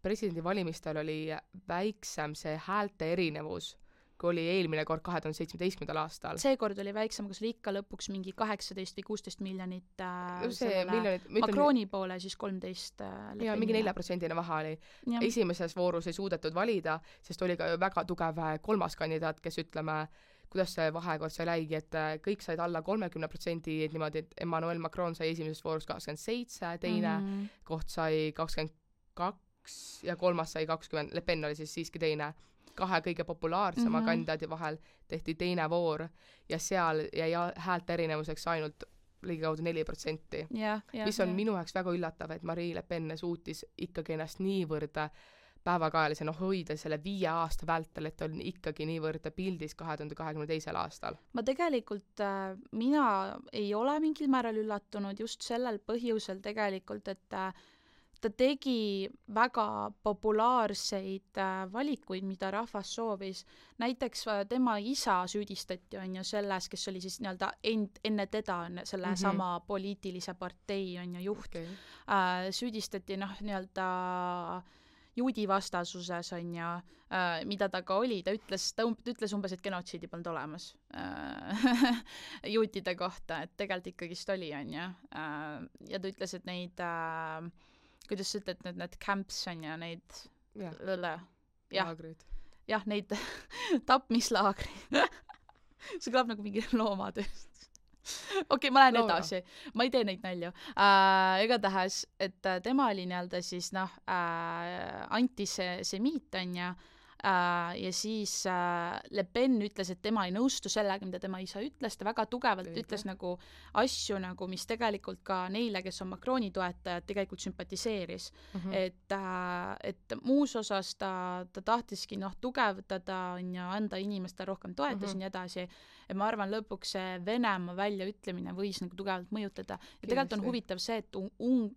presidendivalimistel oli väiksem see häälte erinevus, kui oli eelmine kord 2017. aastal. Seekord oli väiksem, kus oli ikka lõpuks mingi 18 või 16 miljonit Macroni poole, siis 13 ja mingi 4% vahe oli. Ja. Esimeses voorus ei suudetud valida, sest oli ka väga tugev kolmas kandidaat, kes ütleme, kuidas see vahekord sai läigi, et kõik said alla 30%, et niimoodi, et Emmanuel Macron sai esimeses voorus 27, teine koht sai 22 ja kolmas sai 20, Le Pen oli siis siiski teine. 2 kõige populaarsema kandidaadi vahel tehti teine voor ja seal jäi häälte erinevuseks ainult ligikaudu 4%. Mis on minu jaoks väga üllatav, et Marine Le Pen suutis ikkagi ennast niivõrd päevakajalise hoida selle 5 aasta vältel, et on ikkagi niivõrd pildis 2022. aastal. Ma tegelikult, mina ei ole mingil määral üllatunud just sellel põhjusel tegelikult, et ta tegi väga populaarseid valikuid, mida rahvas soovis. Näiteks tema isa süüdistati on ju selles, kes oli siis enne teda selle sama poliitilise partei on ju juht. Süüdistati juudi vastasuses on ju, mida ta ka oli. Ta ütles umbes, et genotsiidi polnud olemas juutide kohta, et tegelikult ikkagist oli on ju. Ja ta ütles, et neid kuidas sa ütled, need camps on ja neid laagrid. Jah, neid tapmislaagrid. See kõlab nagu mingi loomatööst. Okei, ma lähen edasi. Ma ei tee neid nälju. Igatahes, et tema oli siis antisemiit on ja siis Le Pen ütles, et tema ei nõustu sellega, mida tema isa ütles, ta väga tugevalt ütles nagu asju, nagu, mis tegelikult ka neile, kes on Macroni toetajad, tegelikult sümpatiseeris. Et muus osas ta tahtiski tugevdada ja anda inimestele rohkem toetusi nii edasi. Ja ma arvan, lõpuks see Venemaa väljaütlemine võis nagu tugevalt mõjutada. Ja tegelikult on huvitav see, et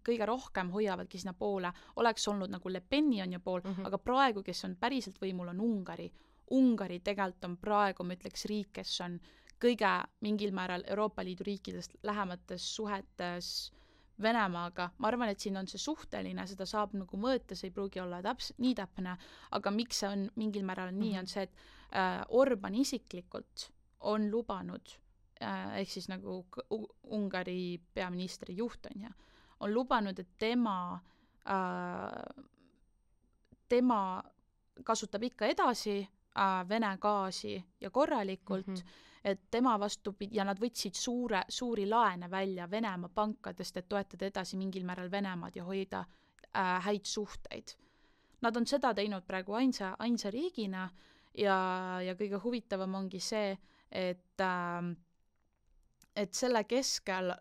kõige rohkem hoiavadki sinna poole. Oleks olnud nagu Le Peni on ju pool, aga praegu, kes on päriselt võimul, on Ungari. Ungari tegelikult on praegu, ma ütleks, riik, kes on kõige mingil määral Euroopa Liidu riikidest lähemates suhetes Venemaaga. Ma arvan, et siin on see suhteline, seda saab nagu mõõta, see ei pruugi olla nii täpne, aga miks see on mingil määral nii, on see, et Orban isiklikult on lubanud, ehk siis nagu Ungari peaministri juht on lubanud, et tema kasutab ikka edasi Vene gaasi ja korralikult, et tema vastupidi, ja nad võtsid suuri laene välja Venemaa pankadest, et toetada edasi mingil määral Venemaad ja hoida häid suhteid. Nad on seda teinud praegu ainsa riigina ja kõige huvitavam ongi see, et selle keskel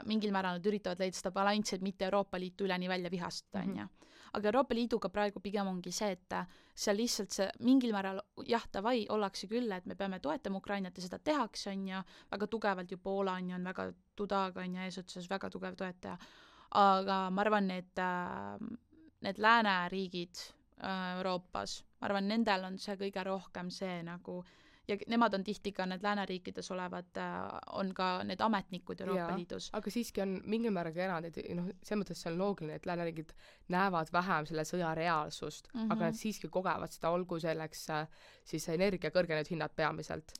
mingil määral nad üritavad leida seda balanssi, et mitte Euroopa Liitu üleni välja vihastada, on ju. Aga Euroopa Liiduga praegu pigem ongi see, et seal lihtsalt see mingil määral davai, ollakse küll, et me peame toetama Ukrainat ja seda tehakse, on ju, väga tugevalt ju Poola on ju, on väga Dudaga on ju eesotsas väga tugev toetaja. Aga ma arvan, et need lääneriigid Euroopas, ma arvan, nendel on see kõige rohkem see nagu ja nemad on tihti ka need lääneriikides olevad, on ka need ametnikud Euroopa Liidus. Aga siiski on mingil määral ka erandid, selles mõttes see on loogiline, et lääneriigid näevad vähem selle sõja reaalsust, aga nad siiski kogevad seda, olgu selleks siis energia kõrgenenud hinnad peamiselt.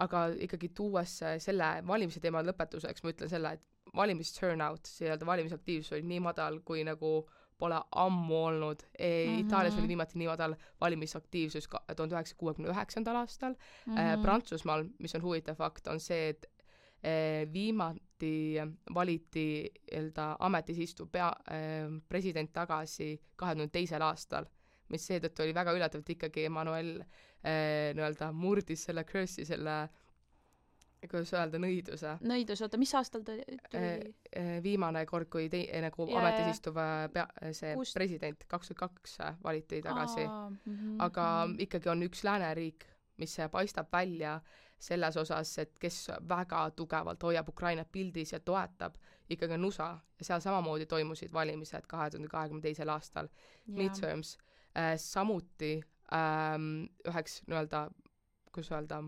Aga ikkagi tuues selle valimise teema lõpetuseks, ma ütlen selle, et valimisturnout, valimisaktiivsus oli nii madal, kui nagu pole ammu olnud. Itaalias oli viimati nii madal valimisaktiivsus 1969. aastal. Prantsusmaal, mis on huvitav fakt, on see, et viimati valiti ametis istuv president tagasi 2002. aastal, mis seetõttu oli väga üllatavalt ikkagi Emmanuel murdis selle curse'i, selle kuidas öelda, nõiduse. Oota, mis aastal ta tuli? Viimane kord, kui nagu ametis istuv president 2002 valiti tagasi. Aga ikkagi on üks lääneriik, mis paistab välja selles osas, et kes väga tugevalt hoiab Ukrainat pildis ja toetab, ikkagi on USA. Ja seal samamoodi toimusid valimised 2022. aastal. Midterms. Samuti üheks kuidas öelda,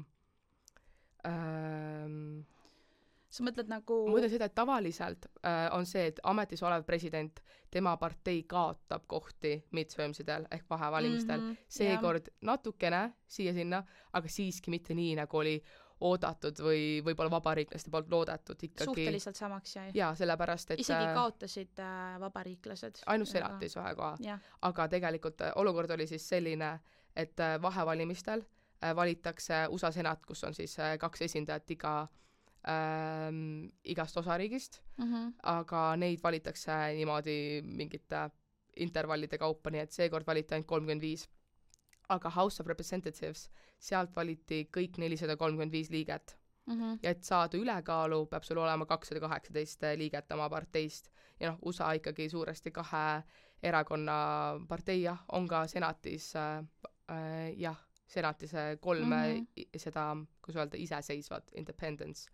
sa mõtled nagu ma mõtlen seda, et tavaliselt on see, et ametis olev president, tema partei kaotab kohti midtermsidel ehk vahevalimistel. Seekord natukene siia-sinna, aga siiski mitte nii, nagu oli oodatud või võib-olla vabariiklaste poolt loodetud ikkagi. Suhteliselt samaks jäi. Jaa, sellepärast, et isegi kaotasid vabariiklased. Ainult senatis ühe koha. Aga tegelikult olukord oli siis selline, et vahevalimistel valitakse USA senat, kus on siis 2 esindajat igast osariigist, aga neid valitakse niimoodi mingite intervallide kaupa, nii et seekord valiti ainult 35. Aga House of Representatives, sealt valiti kõik 435 liiget. Ja et saada ülekaalu, peab sul olema 218 liiget oma parteist. Ja USA ikkagi suuresti 2 erakonna partei, on ka senatis, senatis 3 seda, kus öelda, iseseisvat, independence.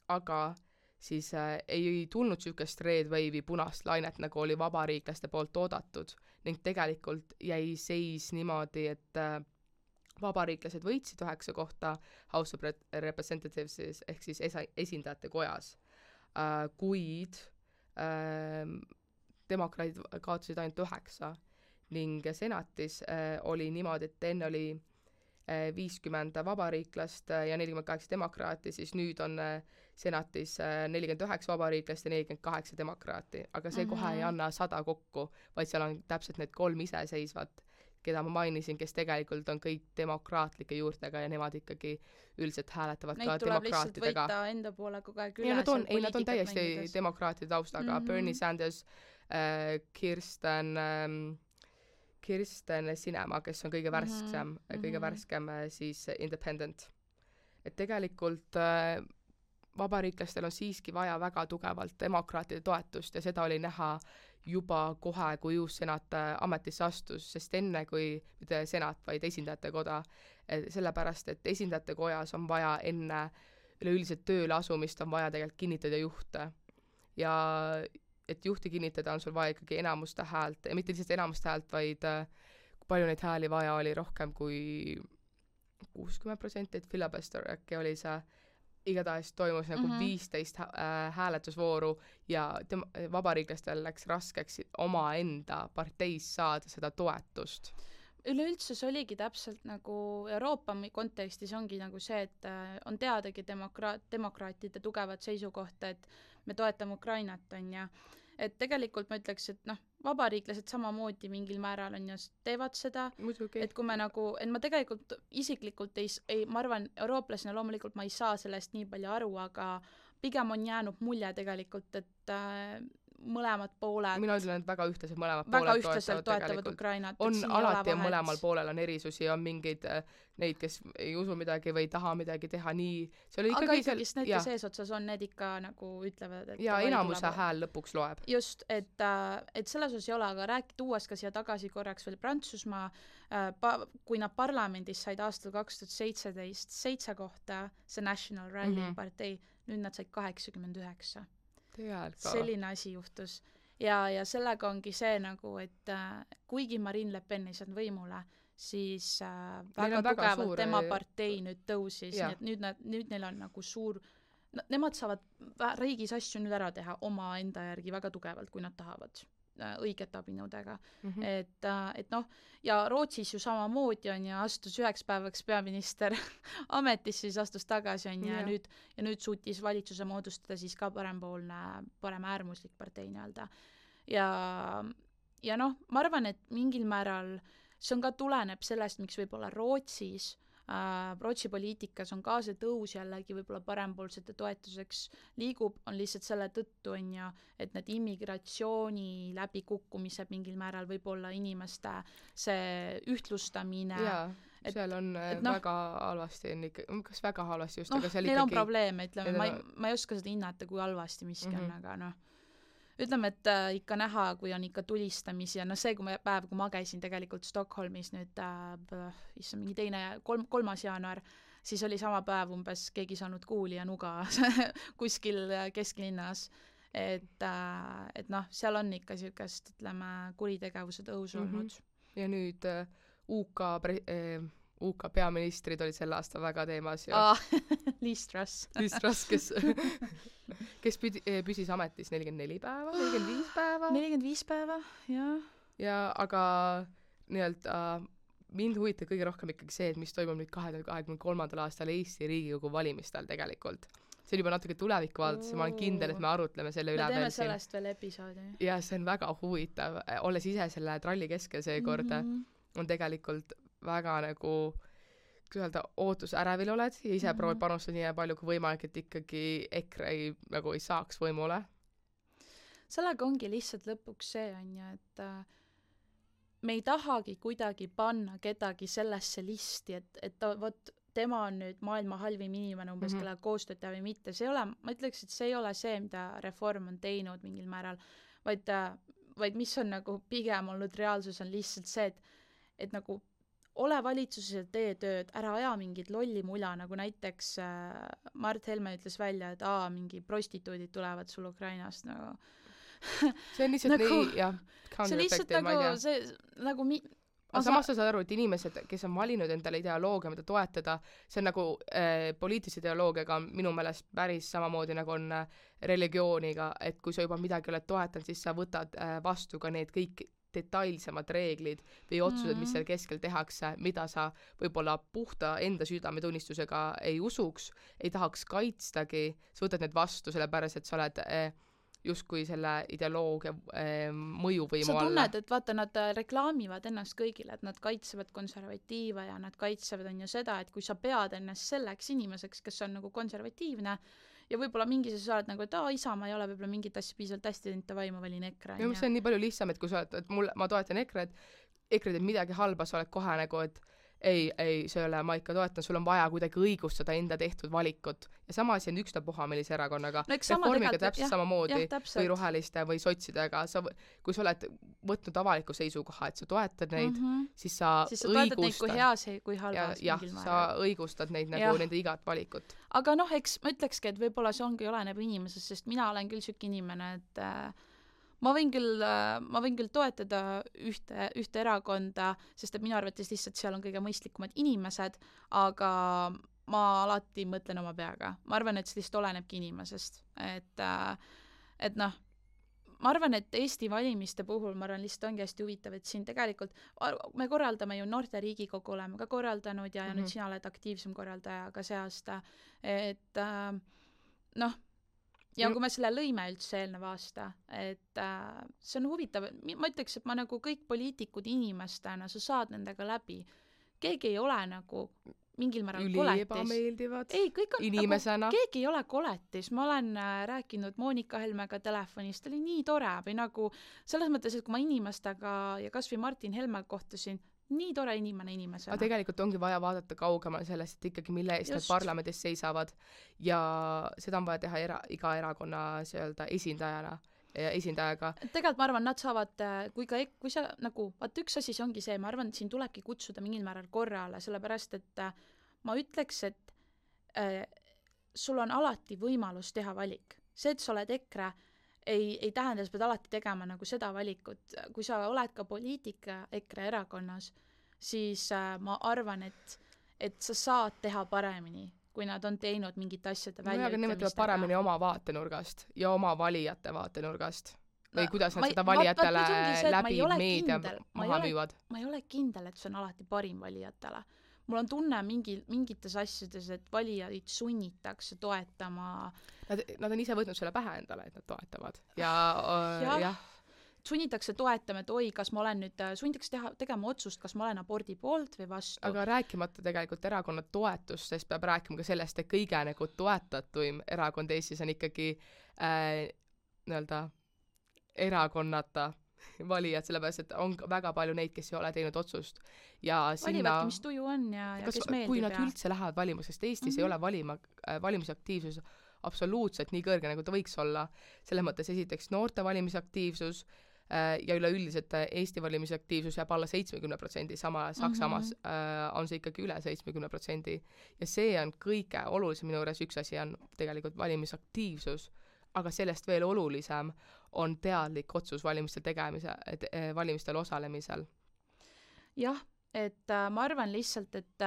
Aga siis ei tulnud sükest red wave'i punast lainet, nagu oli vabariiklaste poolt oodatud, ning tegelikult jäi seis niimoodi, et vabariiklased võitsid 9 kohta House of Representatives ehk siis esindajate kojas, kuid demokraadid kaotasid ainult 9 ning senatis oli niimoodi, et enne oli 50 vabariiklast ja 48 demokraati, siis nüüd on senatis 49 vabariiklast ja 48 demokraati, aga see kohe ei anna 100 kokku, vaid seal on täpselt need 3 iseseisvat, keda ma mainisin, kes tegelikult on kõik demokraatlike juurtega ja nemad ikkagi üldiselt hääletavad neid ka demokraatidega. Neid tuleb lihtsalt võita enda poole kogu aeg üle. Nad on täiesti mängides. Demokraatide taustaga. Bernie Sanders, Kirsten Sinema, kes on kõige värskem siis independent. Et tegelikult vabariiklastel on siiski vaja väga tugevalt demokraatide toetust ja seda oli näha juba kohe, kui uus senat ametisse astus, sest enne kui mitte senat, vaid esindajate koda, sellepärast, et esindajate kojas on vaja enne üleüldiselt tööle asumist on vaja tegelikult kinnitada juhte. Ja et juhti kinnitada on sul vaja ikkagi enamuste häält, ja mitte lihtsalt enamuste häält, vaid kui palju neid hääli vaja oli rohkem kui 60%, et filibuster äkki oli see, igatahes toimus nagu 15 hääletusvooru ja vabariiklastel läks raskeks omaenda parteis saada seda toetust. Üleüldse see oligi täpselt nagu Euroopa kontekstis ongi nagu see, et on teadagi demokraatide tugevat seisukohta, et me toetame Ukrainat, on ja et tegelikult ma ütleks, et vabariiklased samamoodi mingil määral on ja teevad seda, muidugi. Et kui me nagu, et ma tegelikult isiklikult ma arvan, eurooplasena loomulikult ma ei saa sellest nii palju aru, aga pigem on jäänud mulje tegelikult, et mõlemad pooled mina ütlen, et väga ühtlaselt mõlemad pooled toetavad Ukrainat. On alati ja mõlemal poolel on erisusi, on mingeid neid, kes ei usu midagi või ei taha midagi teha nii. Aga ikkagi need, kes eesotsas on, need ikka nagu ütlevad, et ja enamuse hääl lõpuks loeb. Just, et selles osas ei ole, aga tuues ka siia tagasi korraks veel Prantsusmaa, kui nad parlamendis said aastal 2017 7 kohta, see National Rally partei, nüüd nad said 89. Selline asi juhtus. Ja sellega ongi see nagu, et kuigi Marine Le Pen ei saanud võimule, siis väga tugevalt tema partei nüüd tõusis, nii et nüüd neil on nagu suur, nemad saavad riigis asju nüüd ära teha oma enda järgi väga tugevalt, kui nad tahavad õigete abinõudega. Et noh, ja Rootsis ju samamoodi on ja astus 9 päevaks peaminister ametisse, siis astus tagasi on ja nüüd suutis valitsuse moodustada siis ka paremäärmuslik partei nii-öelda. Ja noh, ma arvan, et mingil määral see on ka tuleneb sellest, miks võib-olla Rootsi poliitikas on ka see tõus jällegi võib-olla parempoolsete toetuseks liigub, on lihtsalt selle tõttu, et need immigratsiooni läbikukkumised mingil määral võib-olla inimeste see ühtlustamine. Jaa, seal on väga halvasti, kas väga halvasti just, aga seal neil on probleeme, ütleme, ma ei oska seda hinnata, kui halvasti miski on, aga ütleme, et ikka näha, kui on ikka tulistamisi ja see päev, kui ma käisin tegelikult Stockholmis nüüd, mingi 3. jaanuar, siis oli sama päev umbes, keegi saanud kuuli ja nuga kuskil kesklinnas. Et noh, seal on ikka siukest, ütleme, kuritegevuse tõus olnud. Ja nüüd UK peaministrid olid sel aastal väga teemas. Liz Truss. Liz Truss, kes püsis ametis 44 päeva, 45 päeva. 45 päeva, jah. Ja aga nii-öelda mind huvitab kõige rohkem ikkagi see, et mis toimub nüüd 2023. aastal Eesti Riigikogu valimistel tegelikult. See on juba natuke tulevikku vaadates ja ma olen kindel, et me arutleme selle üle. Me teeme sellest veel episoodi. Ja see on väga huvitav. Olles ise selle tralli keskel seekord, on tegelikult väga nagu, kui öelda, ootusärevil oled ja ise proovid panustada nii palju kui võimalik, et ikkagi EKRE ei saaks võimule. Sellega ongi lihtsalt lõpuks see on ja, et me ei tahagi kuidagi panna kedagi sellesse listi, et võt, tema on nüüd maailma halvim inimene umbes, kellega koostööd teha või mitte. See ei ole, ma ütleks, et see ei ole see, mida Reform on teinud mingil määral, vaid mis on nagu pigem olnud reaalsus on lihtsalt see, et nagu ole valitsuses ja tee tööd, ära aja mingit lolli mula, nagu näiteks Mart Helme ütles välja, et mingi prostituudid tulevad sul Ukrainast nagu. See on lihtsalt nagu, nii, jah, counter-effective, ma ei tea. See nagu aga samas sa saad aru, et inimesed, kes on valinud endale ideoloogia, mida toetada, see on nagu poliitilise ideoloogiaga minu meelest päris samamoodi nagu on religiooniga, et kui sa juba midagi oled toetanud, siis sa võtad vastu ka need kõik detailsemad reeglid või otsused, mis seal keskel tehakse, mida sa võib-olla puhta enda südametunnistusega ei usuks, ei tahaks kaitstagi, sa võtad need vastu, sellepärast, et sa oled justkui selle ideoloogia mõjuvõimu alla. Sa tunned, et vaata, nad reklaamivad ennast kõigile, et nad kaitsevad konservatiive ja nad kaitsevad on ju seda, et kui sa pead ennast selleks inimeseks, kes on nagu konservatiivne, ja võib-olla mingis sa oled nagu, et Isamaa ei ole võib-olla mingit asja piisavalt hästi teinud, ta vaima valin EKRE. Ja see on nii palju lihtsam, et kui sa oled, et ma toetan EKRE, EKRE teeb midagi halba, sa oled kohe nagu, et ei, see ei ole, ma ikka toetan, sul on vaja kuidagi õigustada enda tehtud valikut. Ja sama asi on ükstapuha millise erakonnaga. Reformiga täpselt samamoodi või roheliste või sotsidega. Kui sa oled võtnud avaliku seisukoha, et sa toetad neid, siis sa toetad neid kui heas, kui halvas. Jah, sa õigustad neid nagu nende igat valikut. Aga noh, eks ma ütlekski, et võib-olla see ongi oleneb inimesest, sest mina olen küll süki inimene, et ma võin küll toetada ühte erakonda, sest et minu arvates lihtsalt seal on kõige mõistlikumad inimesed, aga ma alati mõtlen oma peaga. Ma arvan, et see lihtsalt olenebki inimesest. Et noh, ma arvan, et Eesti valimiste puhul, ma arvan, lihtsalt ongi hästi huvitav, et siin tegelikult me korraldame ju Noorte Riigikogu oleme ka korraldanud ja nüüd sina oled aktiivsem korraldaja ka see aasta. Et noh, ja kui me selle lõime üldse eelneva aasta, et see on huvitav, ma ütleks, et ma nagu kõik poliitikud inimestena, sa saad nendega läbi. Keegi ei ole nagu mingil määral koletis. Ebameeldivad inimesena. Nagu, keegi ei ole koletis. Ma olen rääkinud Monika Helmega telefonist, ta oli nii tore või nagu selles mõttes, et kui ma inimestega ja kas või Martin Helme kohtusin, nii tore inimesena. Aga tegelikult ongi vaja vaadata kaugemal sellest, et ikkagi mille eest need parlamendis seisavad ja seda on vaja teha iga erakonna esindajaga. Tegelikult ma arvan, nad saavad, kui sa nagu, vaat üks asi see ongi see, ma arvan, et siin tulebki kutsuda mingil määral korrale, sellepärast, et ma ütleks, et sul on alati võimalus teha valik. See, et sa oled EKRE, ei tähenda, sa pead alati tegema nagu seda valikut. Kui sa oled ka poliitika EKRE erakonnas, siis ma arvan, et sa saad teha paremini, kui nad on teinud mingite asjade väljaütlemistega. Aga nemad teevad paremini oma vaatenurgast ja oma valijate vaatenurgast. Või kuidas nad seda valijatele läbi meedia maha müüvad? Ma ei ole kindel, et see on alati parim valijatele. Mul on tunne mingites asjades, et valijaid sunnitakse toetama. Nad on ise võtnud selle pähe endale, et nad toetavad. Ja. Sunnitakse toetama, et oi, kas ma olen nüüd, sunnitakse tegema otsust, kas ma olen abordi poolt või vastu. Aga rääkimata tegelikult erakonna toetust, sest peab rääkima ka sellest, et kõige nagu toetatuim erakond Eestis on ikkagi nii-öelda erakonnata valijad, sellepärast, et on väga palju neid, kes ei ole teinud otsust. Ja valivadki, mis tuju on ja kes meeldib. Kui nad üldse lähevad valima, sest Eestis ei ole valimisaktiivsus absoluutselt nii kõrge, nagu ta võiks olla. Selles mõttes esiteks noorte valimisaktiivsus ja üleüldiselt Eesti valimisaktiivsus jääb alla 70%, sama Saksamaas on see ikkagi üle 70%. Ja see on kõige olulisem minu juures, üks asi on tegelikult valimisaktiivsus, aga sellest veel olulisem on teadlik otsus valimistel osalemisel. Jah, et ma arvan lihtsalt, et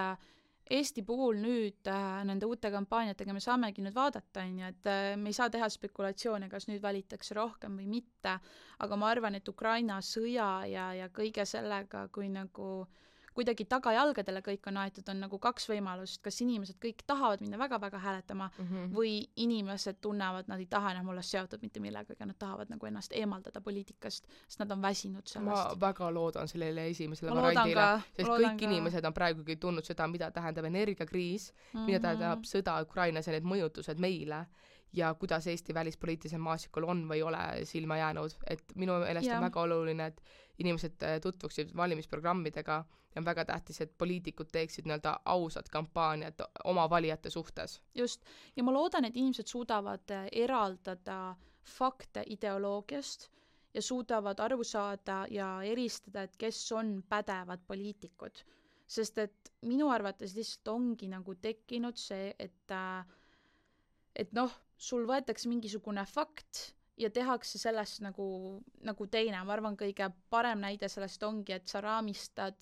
Eesti puhul nüüd nende uute kampaaniatega me saamegi nüüd vaadata, et me ei saa teha spekulatsioone, kas nüüd valitakse rohkem või mitte, aga ma arvan, et Ukraina sõja ja kõige sellega, kui nagu kuidagi tagajalgadele kõik on aetud, on nagu kaks võimalust, kas inimesed kõik tahavad minna väga-väga hääletama või inimesed tunnevad, nad ei taha enam olla seotud mitte millega, aga nad tahavad nagu ennast eemaldada poliitikast, sest nad on väsinud sellest. Ma väga loodan sellele esimesele variandile, sest kõik inimesed on praegugi tundnud seda, mida tähendab energiakriis, mida tähendab sõda Ukrainas ja need mõjutused meile ja kuidas Eesti välispoliitilisel maasikul on või ole silma jäänud. Et minu meelest on väga oluline, et inimesed tutvuksid valimisprogrammidega ja on väga tähtis, et poliitikud teeksid nii-öelda ausad kampaaniad oma valijate suhtes. Just. Ja ma loodan, et inimesed suudavad eraldada fakte ideoloogiast ja suudavad aru saada ja eristada, et kes on pädevad poliitikud. Sest et minu arvates lihtsalt ongi nagu tekkinud see, et noh, sul võetakse mingisugune fakt ja tehakse sellest nagu teine. Ma arvan, kõige parem näide sellest ongi, et sa raamistad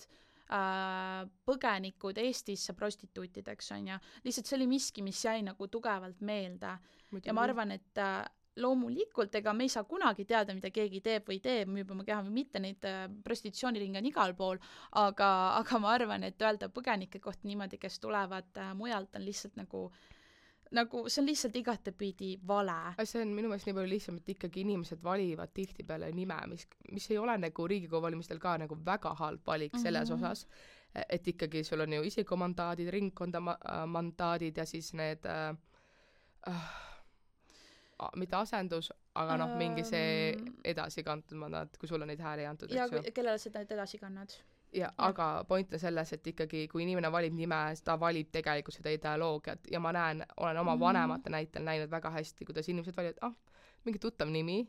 põgenikud Eestisse prostituutideks, on ja lihtsalt see oli miski, mis jäi nagu tugevalt meelde. Ja ma arvan, et loomulikult, ega me ei saa kunagi teada, mida keegi teeb või teeb, müüb oma keha või mitte, neid prostitutsiooniringe on igal pool, aga ma arvan, et öelda põgenike kohta niimoodi, kes tulevad mujalt, on lihtsalt nagu see on lihtsalt igatepidi vale. See on minu meelest nii palju lihtsam, et ikkagi inimesed valivad tihtipeale nime, mis ei ole nagu Riigikogu valimistel ka nagu väga halb valik selles osas, et ikkagi sul on ju isikumandaadid, ringkonda mandaadid ja siis need mitte asendus, aga mingi see edasi kantud mandaat, kui sul on neid hääli antud. Ja kellele seda edasi kannad? Ja, aga point on selles, et ikkagi kui inimene valib nime, ta valib tegelikult seda ideoloogiat ja ma olen oma vanemate näitel näinud väga hästi, kuidas inimesed valivad, mingi tuttav nimi,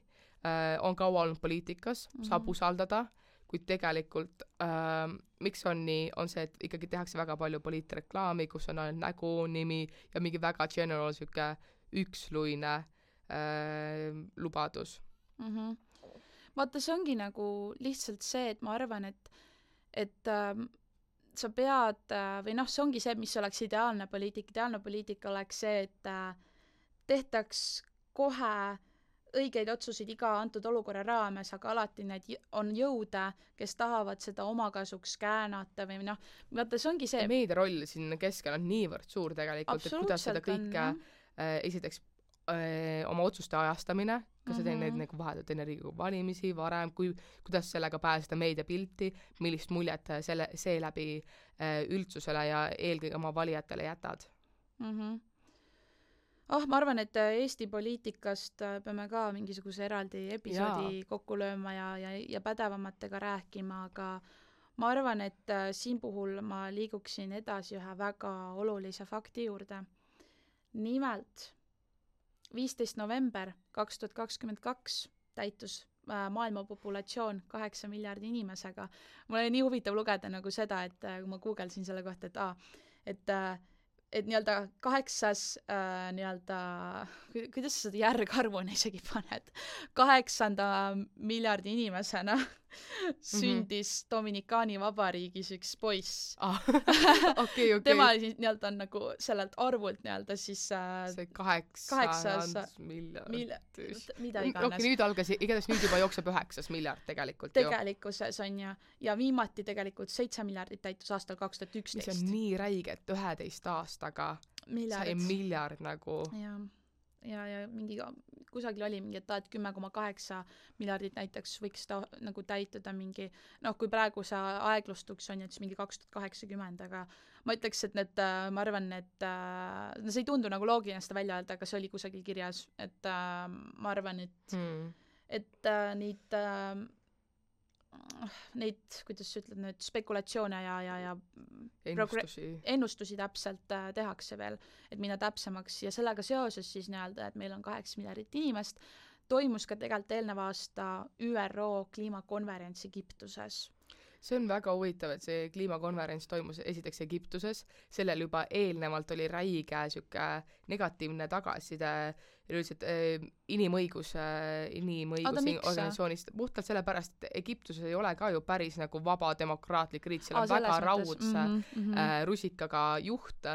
on kaua olnud poliitikas, saab usaldada, kuid tegelikult miks on nii, on see, et ikkagi tehakse väga palju poliitreklaami, kus on ainult nägu, nimi ja mingi väga general süke üksluine lubadus. Vaata, see ongi nagu lihtsalt see, et ma arvan, et sa pead, või noh, see ongi see, mis oleks ideaalne poliitika oleks see, et tehtaks kohe õigeid otsuseid iga antud olukorra raames, aga alati need on jõude, kes tahavad seda omakasuks käänata või noh, vaata, see ongi see. Meedia roll siin keskel on niivõrd suur tegelikult, et kuidas seda kõike esiteks oma otsuste ajastamine, kas sa teed neid nagu vahetult enne Riigikogu valimisi, varem, kuidas sellega pääseda meediapilti, millist muljet see läbi üldsusele ja eelkõige oma valijatele jätad? Ma arvan, et Eesti poliitikast peame ka mingisuguse eraldi episoodi kokku lööma ja pädevamatega rääkima, aga ma arvan, et siin puhul ma liiguksin edasi ühe väga olulise fakti juurde. Nimelt 15. november 2022 täitus maailma populatsioon 8 miljardi inimesega. Mul oli nii huvitav lugeda nagu seda, et kui ma googelsin selle kohta, et nii-öelda 8. nii-öelda, kuidas sa seda järgarvuna isegi paned, 8. miljardi inimesena sündis Dominikaani vabariigis üks poiss. Okei. Tema nii-öelda on nagu sellelt arvult nii-öelda siis see 800 miljardit. Mida iganes. Okei, igatahes nüüd juba jookseb 9 miljard tegelikult. Tegelikkuses on ja viimati tegelikult 7 miljardit täitus aastal 2011. Mis on nii räige, et 11 aastaga sai miljard nagu. Ja mingi kusagil oli mingi, et 10,8 miljardit näiteks võiks ta nagu täituda mingi, kui praegu see aeglustuks on, et siis mingi 2080, aga ma ütleks, et ma arvan, et see ei tundu nagu loogiline seda välja öelda, aga see oli kusagil kirjas, et ma arvan, et neid, kuidas sa ütled, need spekulatsioone ja ennustusi täpselt tehakse veel, et minna täpsemaks ja sellega seoses siis nii-öelda, et meil on 8 miljardit inimest, toimus ka tegelikult eelneva aasta ÜRO kliimakonverents Egiptuses. See on väga huvitav, et see kliimakonverents toimus esiteks Egiptuses, sellel juba eelnevalt oli räige siuke negatiivne tagasiside üldiselt inimõiguse organisatsioonist, puhtalt sellepärast, et Egiptuses ei ole ka ju päris nagu vaba demokraatlik riik, seal on väga raudse rusikaga juht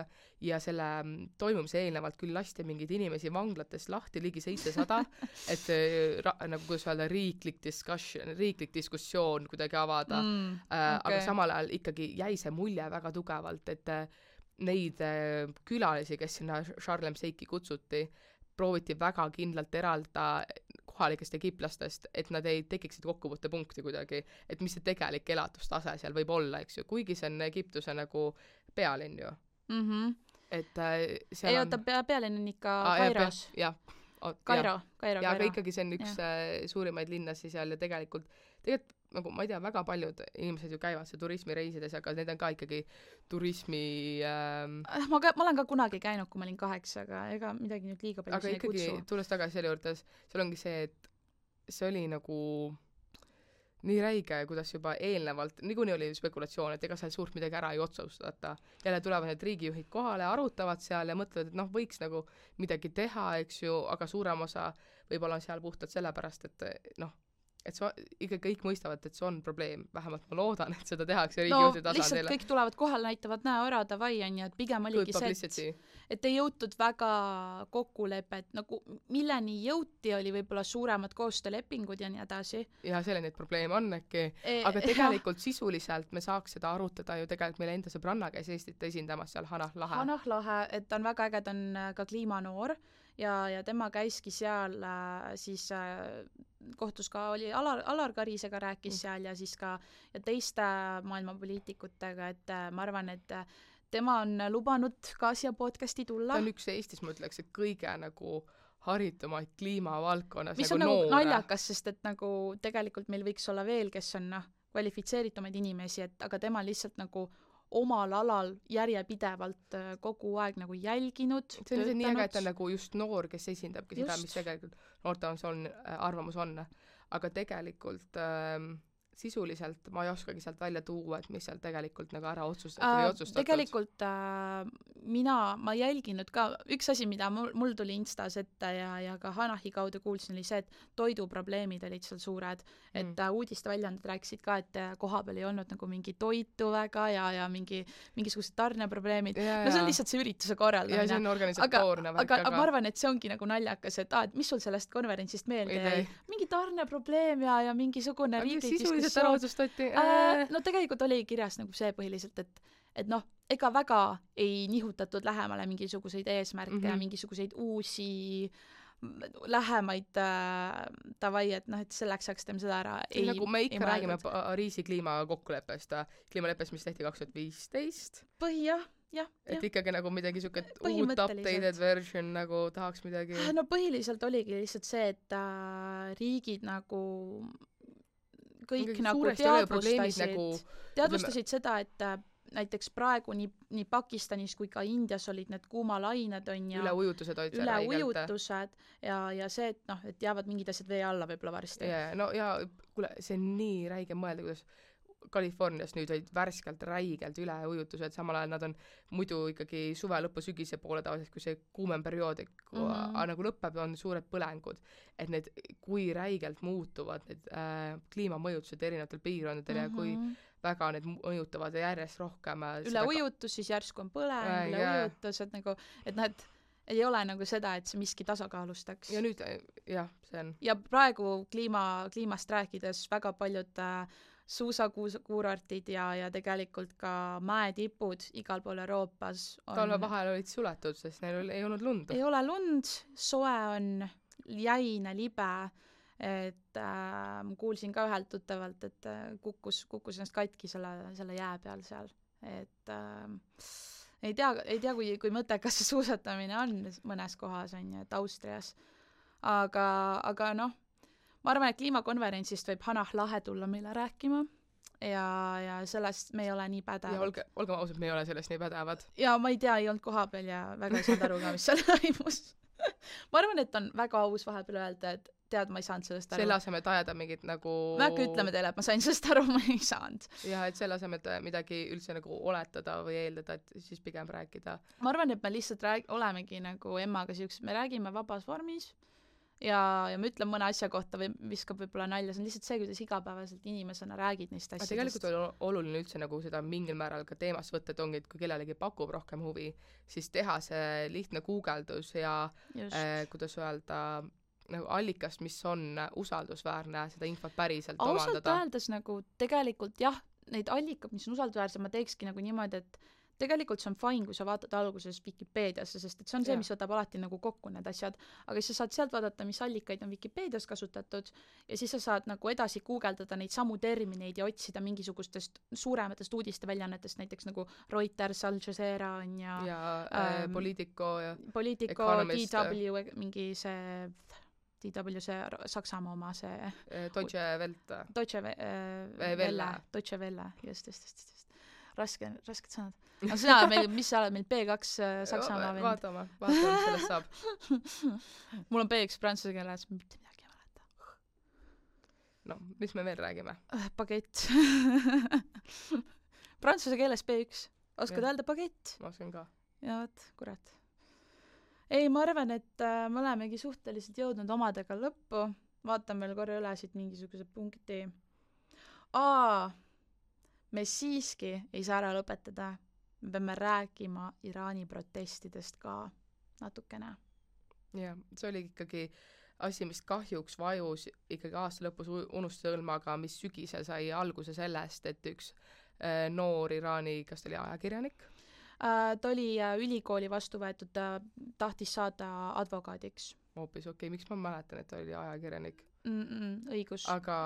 ja selle toimumise eelnevalt küll lasti mingeid inimesi vanglatest lahti ligi 700, et nagu kuidas öelda, riiklik diskussioon kuidagi avada, aga samal ajal ikkagi jäi see mulje väga tugevalt, et neid külalisi, kes sinna Sharm el Sheikhi kutsuti, prooviti väga kindlalt eralda kohalikest egiplastest, et nad ei tekiksid kokkuvõttepunkti kuidagi, et mis see tegelik elatustase seal võib olla, eks ju, kuigi see on Egiptuse nagu pealinn ju. Et seal ei oota, pealinn on ikka Kairos. Kairo. Aga ikkagi see on üks suurimaid linnasi seal ja tegelikult nagu ma ei tea, väga paljud inimesed ju käivad see turismireisides, aga need on ka ikkagi turismi ma olen ka kunagi käinud, kui ma olin 8, aga ega midagi nüüd liiga palju aga ikkagi, tulles tagasi selle juurde, seal ongi see, et see oli nagu nii räige, kuidas juba eelnevalt, niikuinii oli spekulatsioon, et ega seal suurt midagi ära ei otsustata. Jälle tulevad need riigijuhid kohale, arutavad seal ja mõtlevad, et võiks nagu midagi teha, eks ju, aga suurem osa võib-olla on seal puhtalt sellepärast, et et ikka kõik mõistavad, et see on probleem. Vähemalt ma loodan, et seda tehakse riigijuhti tasandile. Lihtsalt kõik tulevad kohale, näitavad näo davai, on ju, et pigem oligi see, et ei jõutud väga kokkulepet, nagu milleni jõuti, oli võib-olla suuremad koostöölepingud ja nii edasi. Ja selle neid probleeme on äkki. Aga tegelikult sisuliselt me saaks seda arutada ju tegelikult meil enda sõbranna käis Eestit esindamas seal Hanah Lahe. Hanah Lahe, et on väga äge, ta on ka kliimanoor ja tema käiski seal siis kohtus ka oli Alar Karisega rääkis seal ja siis ka ja teiste maailma poliitikutega, et ma arvan, et tema on lubanud ka siia podcasti tulla. Ta on üks Eestis, ma ütleks, et kõige nagu haritumaid kliimavaldkonnas mis nagu on noore. Nagu naljakas, sest et nagu tegelikult meil võiks olla veel, kes on kvalifitseeritumaid inimesi, et aga tema lihtsalt nagu omal alal järjepidevalt kogu aeg nagu jälginud, see on nii äge, et ta on nagu just noor, kes esindabki seda, mis tegelikult noorte arvamus on. Aga tegelikult sisuliselt ma ei oskagi sealt välja tuua, et mis seal tegelikult nagu ära otsustatud. Tegelikult ma jälginud ka, üks asi, mida mul tuli Instas ette ja ka Hanahi kaudu kuulsin, oli see, et toiduprobleemid olid seal suured, et uudiste väljaanded rääkisid ka, et koha peal ei olnud nagu mingi toitu väga ja mingisugused tarneprobleemid. No see on lihtsalt see ürituse korraldamine. Ja see on organisatoorne. Aga ma arvan, et see ongi nagu naljakas, et mis sul sellest konverentsist meelde jäi? Mingi tarneprobleem ja mingisugune riiklik diskussioon. No tegelikult oli kirjas nagu see põhiliselt, et ega väga ei nihutatud lähemale mingisuguseid eesmärke ja mingisuguseid uusi lähemaid davai, et et selleks saaks teeme seda ära. Nagu me ikka räägime Pariisi kliimakokkuleppest, mis tehti 2015. Jah. Et ikkagi nagu midagi siuke uut updated version nagu tahaks midagi. No põhiliselt oligi lihtsalt see, et riigid nagu kõik nagu teadvustasid seda, et näiteks praegu nii Pakistanis kui ka Indias olid need kuumalained on ja üleujutused ja see, et jäävad mingid asjad vee alla võib-olla varsti. Ja kuule, see on nii räige mõelda, kuidas Californias nüüd olid värskelt räigelt üleujutused, samal ajal nad on muidu ikkagi suve lõpu sügise poole tavaliselt, kui see kuumem periood nagu lõpeb, on suured põlengud. Et need, kui räigelt muutuvad need kliimamõjutused erinevatel piirkondadel ja kui väga need mõjutavad ja järjest rohkem üleujutus, siis järsku on põleng, üleujutus, et nagu, et noh, et ei ole nagu seda, et see miski tasakaalustaks. Ja nüüd, jah, see on. Ja praegu kliimast rääkides väga paljud suusakuurortid ja tegelikult ka mäetipud igal pool Euroopas on... Talve vahel olid suletud, sest neil ei olnud lund. Ei ole lund, soe on jäine, libe, et kuulsin ka ühelt tuttavalt, et kukkus ennast katki selle jää peal seal, et ei tea kui mõttekas see suusatamine on mõnes kohas, on ju, et Austrias. Aga noh, ma arvan, et kliimakonverentsist võib Hanah Lahe tulla meile rääkima ja sellest me ei ole nii pädevad. Ja olgem ausad, me ei ole sellest nii pädevad. Ja ma ei tea, ei olnud koha peal ja väga ei saanud aru ka, mis seal toimus. Ma arvan, et on väga aus vahepeal öelda, et tead, ma ei saanud sellest aru. Selle asemel, et ajada mingit nagu... Me äkki ütleme teile, et ma sain sellest aru, ma ei saanud. Ja, et selle asemel, et midagi üldse nagu oletada või eeldada, et siis pigem rääkida. Ma arvan, et me lihtsalt olemegi nagu emmaga siuksed, me räägime vabas vormis ja me ütleme mõne asja kohta või viskab võib-olla nalja, see on lihtsalt see, kuidas igapäevaselt inimesena räägid neist asjadest. Tegelikult on oluline üldse nagu seda mingil määral ka teemast võtta, et ongi, et kui kellelegi pakub rohkem huvi, siis teha see lihtne guugeldus ja kuidas öelda nagu allikast, mis on usaldusväärne, seda infot päriselt omandada. Ausalt öeldes nagu tegelikult jah, neid allikad, mis on usaldusväärsed, ma teekski nagu niimoodi, et tegelikult see on fine, kui sa vaatad alguses Wikipeediasse, sest et see on see, mis võtab alati nagu kokku need asjad, aga siis sa saad sealt vaadata, mis allikaid on Wikipedias kasutatud ja siis sa saad nagu edasi guugeldada neid samu termineid ja otsida mingisugustest suurematest uudisteväljaannetest, näiteks nagu Reuters, Al Jazeera on ja Politico ja Politico, DW, mingi see DW, see Saksamaa oma, see Deutsche Welle. Deutsche Welle, just. Rasked sõnad. Aga sina oled mis sa oled meil B2 Saksamaa vend? Vaatame, mis sellest saab. Mul on B1 prantsuse keeles, mitte midagi ei mäleta. No, mis me veel räägime? Bagett. Prantsuse keeles B1. Oskad öelda bagett? Ma oskan ka. Ja võt, kurat. Ei, ma arvan, et me olemegi suhteliselt jõudnud omadega lõppu. Vaatan veel korra üle siit mingisuguse punkti. Me siiski ei saa ära lõpetada. Me peame rääkima Iraani protestidest ka natukene. Jah, see oli ikkagi asi, mis kahjuks vajus ikkagi aasta lõpus unustuse õlma, aga mis sügisel sai alguse sellest, et üks noor Iraani, kas ta oli ajakirjanik? Ta oli ülikooli vastu võetud, ta tahtis saada advokaadiks. Hoopis okei, miks ma mäletan, et ta oli ajakirjanik? Õigus. Aga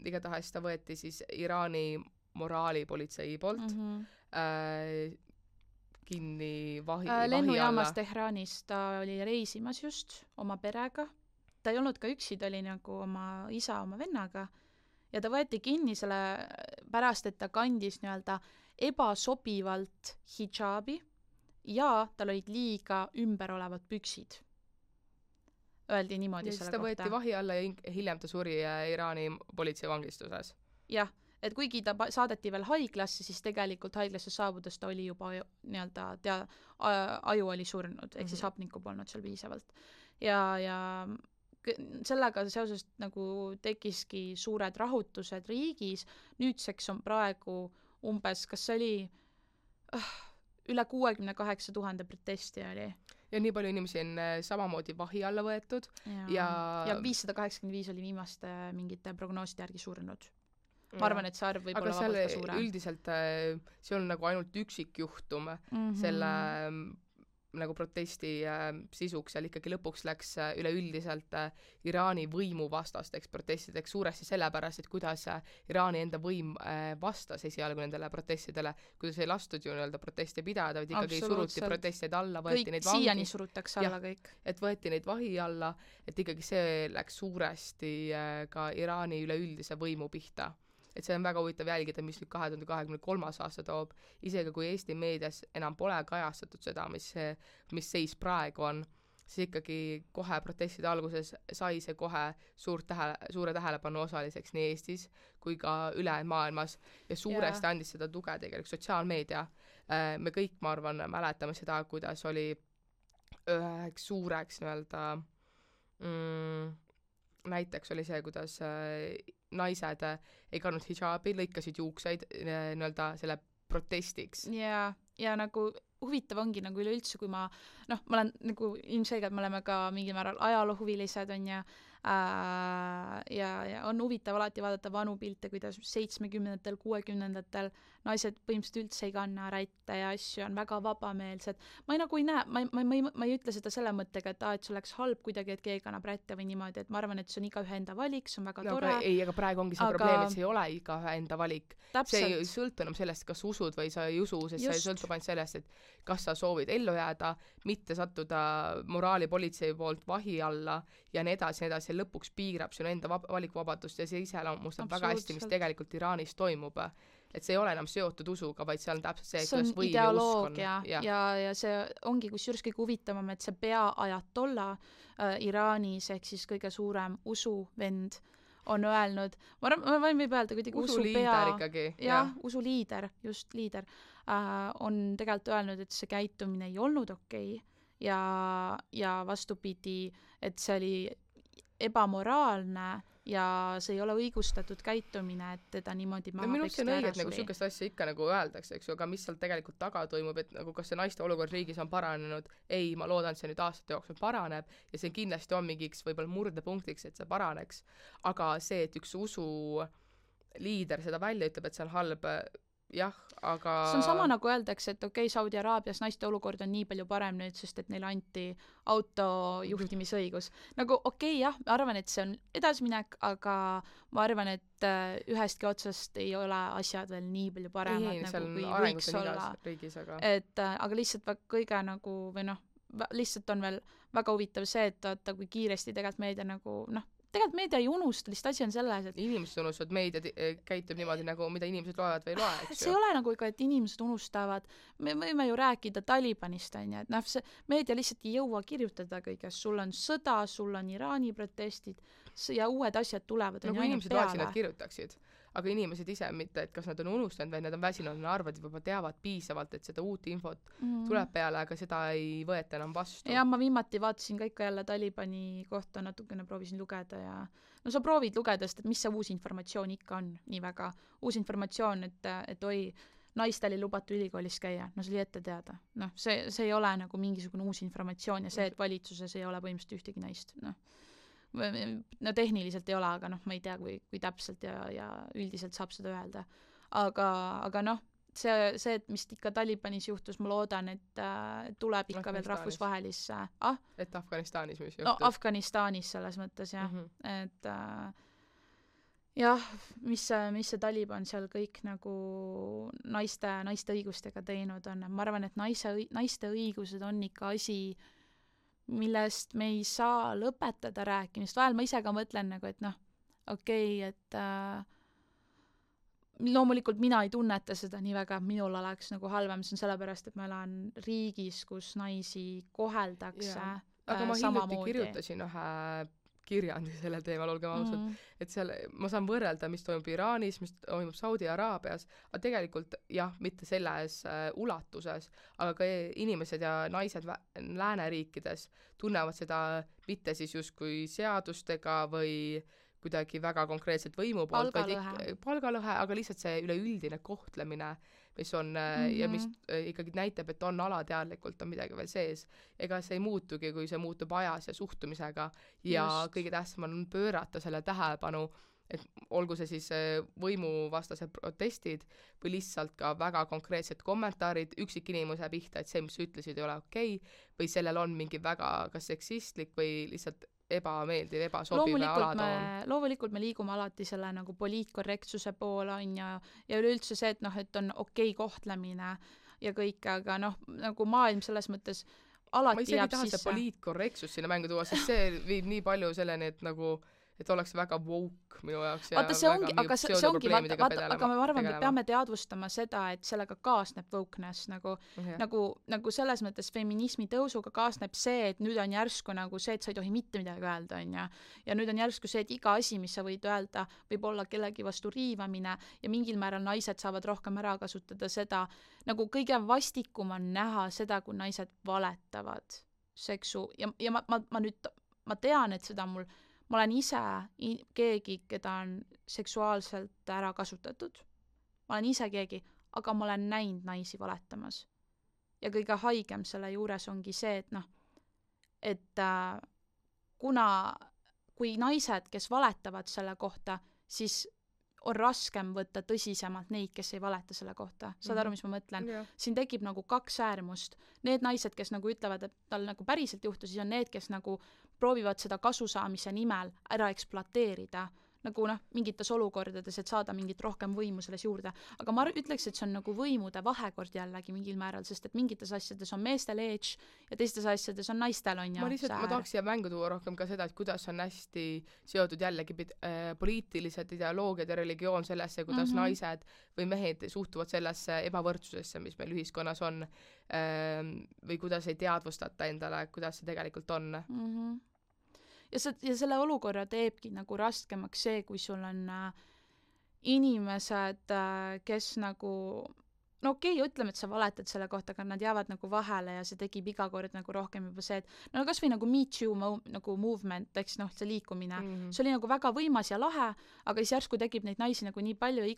igatahes ta võeti siis Iraani moraalipolitsei poolt kinni vahi alla. Lennujaamas Tehranis ta oli reisimas just oma perega. Ta ei olnud ka üksi, ta oli nagu oma isa, oma vennaga. Ja ta võeti kinni selle pärast, et ta kandis nii-öelda ebasobivalt hidžaabi ja tal olid liiga ümber olevad püksid. Öeldi niimoodi ja selle kohta. Ja siis ta võeti vahi alla ja hiljem ta suri Iraani politsei vangistuses. Jah. Et kuigi ta saadeti veel haiglasse, siis tegelikult haiglasse saabudes ta oli juba nii-öelda aju oli surnud, ehk siis hapnikku polnud seal piisavalt. Ja sellega seoses nagu tekkiski suured rahutused riigis. Nüüdseks on praegu umbes, kas see oli üle 68 000 protesti oli. Ja nii palju inimesi on samamoodi vahi alla võetud. Ja 585 oli viimaste mingite prognooside järgi surnud. Ma arvan, et see arv võib olla vabalt ka suurem. Üldiselt see on nagu ainult üksikjuhtum selle nagu protesti sisuks, seal ikkagi lõpuks läks üleüldiselt Iraani võimu vastasteks protestideks suuresti sellepärast, et kuidas Iraani enda võim vastas esialgu nendele protestidele, kuidas ei lastud ju nii-öelda proteste pidada, vaid ikkagi suruti protestid alla, võeti neid vangi. Siiani surutakse alla kõik. Et võeti neid vahi alla, et ikkagi see läks suuresti ka Iraani üleüldise võimu pihta. Et see on väga huvitav jälgida, mis nüüd 2023. aasta toob, isegi kui Eesti meedias enam pole kajastatud seda, mis seis praegu on, siis ikkagi kohe protestide alguses sai see kohe suure tähelepanu osaliseks nii Eestis kui ka ülejäänud maailmas ja suuresti andis seda tuge tegelikult sotsiaalmeedia. Me kõik, ma arvan, mäletame seda, kuidas oli üheks suureks nii-öelda näiteks oli see, kuidas naised ei kandnud hijaabi, lõikasid juukseid nii-öelda selle protestiks. Ja nagu huvitav ongi nagu üleüldse, kui ma olen nagu ilmselgelt, me oleme ka mingil määral ajaloohuvilised, on ja on huvitav alati vaadata vanu pilte, kuidas 70-ndatel, 60-ndatel naised põhimõtteliselt üldse ei kanna rätte ja asju, on väga vabameelsed. Ma ei näe, ma ei ütle seda selle mõttega, et see oleks halb kuidagi, et keegi kannab rätte või niimoodi, et ma arvan, et see on igaühe enda valik, see on väga tore. Aga praegu ongi see probleem, et see ei ole igaühe enda valik. See ei sõltu enam sellest, kas usud või sa ei usu, sest see sõltub ainult sellest, et kas sa soovid ellu jääda, mitte sattuda moraalipolitsei poolt vahi alla ja nii edasi, lõpuks piirab sinu enda valikuvabadust ja see iseloomustab väga hästi, mis tegelikult Iraanis toimub. Et see ei ole enam seotud usuga, vaid see on täpselt see, kuidas võim ja usk on. Ja see ongi kusjuures kõige huvitavam, et see peaajatolla Iraanis ehk siis kõige suurem usuvend on öelnud, ma võin võib öelda kuidagi usuliider ikkagi. Jah, usuliider, just liider, on tegelikult öelnud, et see käitumine ei olnud okei ja vastupidi, et see oli ebamoraalne ja see ei ole õigustatud käitumine, et teda niimoodi maha minu see on õige, et nagu sükest asja ikka nagu öeldakse, eks ju, aga mis seal tegelikult taga toimub, et nagu kas see naiste olukord riigis on paranenud, ei, ma loodan, et see nüüd aastate jooksul paraneb ja see kindlasti on mingiks võib-olla murdepunktiks, et see paraneks, aga see, et üks usu liider seda välja ütleb, et see on halb, jah, aga see on sama nagu öeldakse, et okei, Saudi Araabias naiste olukord on nii palju parem nüüd, sest et neile anti autojuhtimisõigus. Nagu okei, jah, ma arvan, et see on edasiminek, aga ma arvan, et ühestki otsast ei ole asjad veel nii palju paremad, nagu kui võiks olla. Riigis, aga lihtsalt kõige nagu, või lihtsalt on veel väga huvitav see, et vaata, kui kiiresti tegelikult meedia nagu, tegelikult meedia ei unusta, lihtsalt asi on selles, et inimesed unustavad, meedia käitub niimoodi nagu, mida inimesed loevad või ei loe, eks ju. See ei ole nagu ikka, et inimesed unustavad. Me võime ju rääkida Talibanist, on ju, et see meedia lihtsalt ei jõua kirjutada kõigest. Sul on sõda, sul on Iraani protestid ja uued asjad tulevad. Nagu inimesed loeksid, nad kirjutaksid. Aga inimesed ise mitte, et kas nad on unustanud või nad on väsinud, nad arvad, juba teavad piisavalt, et seda uut infot tuleb peale, aga seda ei võeta enam vastu. Ja ma viimati vaatasin ka ikka jälle Talibani kohta, natukene proovisin lugeda ja sa proovid lugeda, sest et mis see uus informatsioon ikka on nii väga. Uus informatsioon, et oi, naistel ei lubatu ülikoolis käia, see oli ette teada. See ei ole nagu mingisugune uus informatsioon ja see, et valitsuses ei ole põhimõtteliselt ühtegi naist. Tehniliselt ei ole, aga ma ei tea, kui täpselt ja üldiselt saab seda öelda. Aga see, et mis ikka Talibanis juhtus, ma loodan, et tuleb ikka veel rahvusvahelisse. Et Afganistanis mis juhtus? Afganistanis selles mõttes, jah. Et jah, mis see Taliban seal kõik nagu naiste õigustega teinud on. Ma arvan, et naiste õigused on ikka asi, millest me ei saa lõpetada rääkimist. Vahel ma ise ka mõtlen nagu, et okei, et loomulikult mina ei tunneta seda nii väga, minul oleks nagu halvem, see on sellepärast, et ma elan riigis, kus naisi koheldakse aga ma hiljuti kirjutasin ühe kirjandi sellel teemal, olgem ausad, et seal ma saan võrrelda, mis toimub Iraanis, mis toimub Saudi Araabias, aga tegelikult jah, mitte selles ulatuses, aga ka inimesed ja naised lääneriikides tunnevad seda mitte siis justkui seadustega või kuidagi väga konkreetselt võimu poolt, palgalõhe, aga lihtsalt see üleüldine kohtlemine, mis on ja mis ikkagi näitab, et on alateadlikult on midagi veel sees. Ega see ei muutugi, kui see muutub ajas ja suhtumisega ja kõige tähtsam on pöörata selle tähelepanu, et olgu see siis võimuvastased protestid või lihtsalt ka väga konkreetsed kommentaarid üksikinimuse pihta, et see, mis ütlesid, ei ole okei, või sellel on mingi väga kas seksistlik või lihtsalt ebameeldiv, ebasobiv alatoon. Loomulikult me liigume alati selle nagu poliitkorrektsuse poole on ja üleüldse see, et on okei kohtlemine ja kõik, aga nagu maailm selles mõttes alati jääb sisse. Ma isegi taha see poliitkorrektsus sinna mängu tuua, sest see viib nii palju selleni, et nagu et oleks väga woke minu jaoks ja vaata, see ongi, aga see ongi, vaata, aga ma arvan, me peame teadvustama seda, et sellega kaasneb wokeness nagu selles mõttes feminismi tõusuga kaasneb see, et nüüd on järsku nagu see, et sa ei tohi mitte midagi öelda, onju. Ja nüüd on järsku see, et iga asi, mis sa võid öelda, võib olla kellegi vastu riivamine ja mingil määral naised saavad rohkem ära kasutada seda, nagu kõige vastikum on näha seda, kui naised valetavad seksu ja ma tean, et seda ma olen ise keegi, keda on seksuaalselt ära kasutatud. Ma olen ise keegi, aga ma olen näinud naisi valetamas. Ja kõige haigem selle juures ongi see, et kui naised, kes valetavad selle kohta, siis on raskem võtta tõsisemalt neid, kes ei valeta selle kohta. Saad aru, mis ma mõtlen? Yeah. Siin tekib nagu kaks äärmust. Need naised, kes nagu ütlevad, et tal nagu päriselt juhtus, siis on need, kes nagu proovivad seda kasusaamise nimel ära ekspluateerida nagu mingites olukordades, et saada mingit rohkem võimu selles juurde. Aga ma ütleks, et see on nagu võimude vahekord jällegi mingil määral, sest et mingites asjades on meestel edge ja teistes asjades on naistel on ma tahaks siia mängu tuua rohkem ka seda, et kuidas on hästi seotud jällegi poliitilised ideoloogiad ja religioon sellesse, kuidas naised või mehed suhtuvad sellesse ebavõrdsusesse, mis meil ühiskonnas on, või kuidas ei teadvustata endale, kuidas see tegelikult on. Ja selle olukorra teebki nagu raskemaks see, kui sul on inimesed, kes nagu okei, ütleme, et sa valetad selle kohta, aga nad jäävad nagu vahele ja see tegib iga kord nagu rohkem juba see, et kas või nagu Me Too nagu movement, eks see liikumine, see oli nagu väga võimas ja lahe, aga siis järsku tekib neid naisi nagu nii palju ja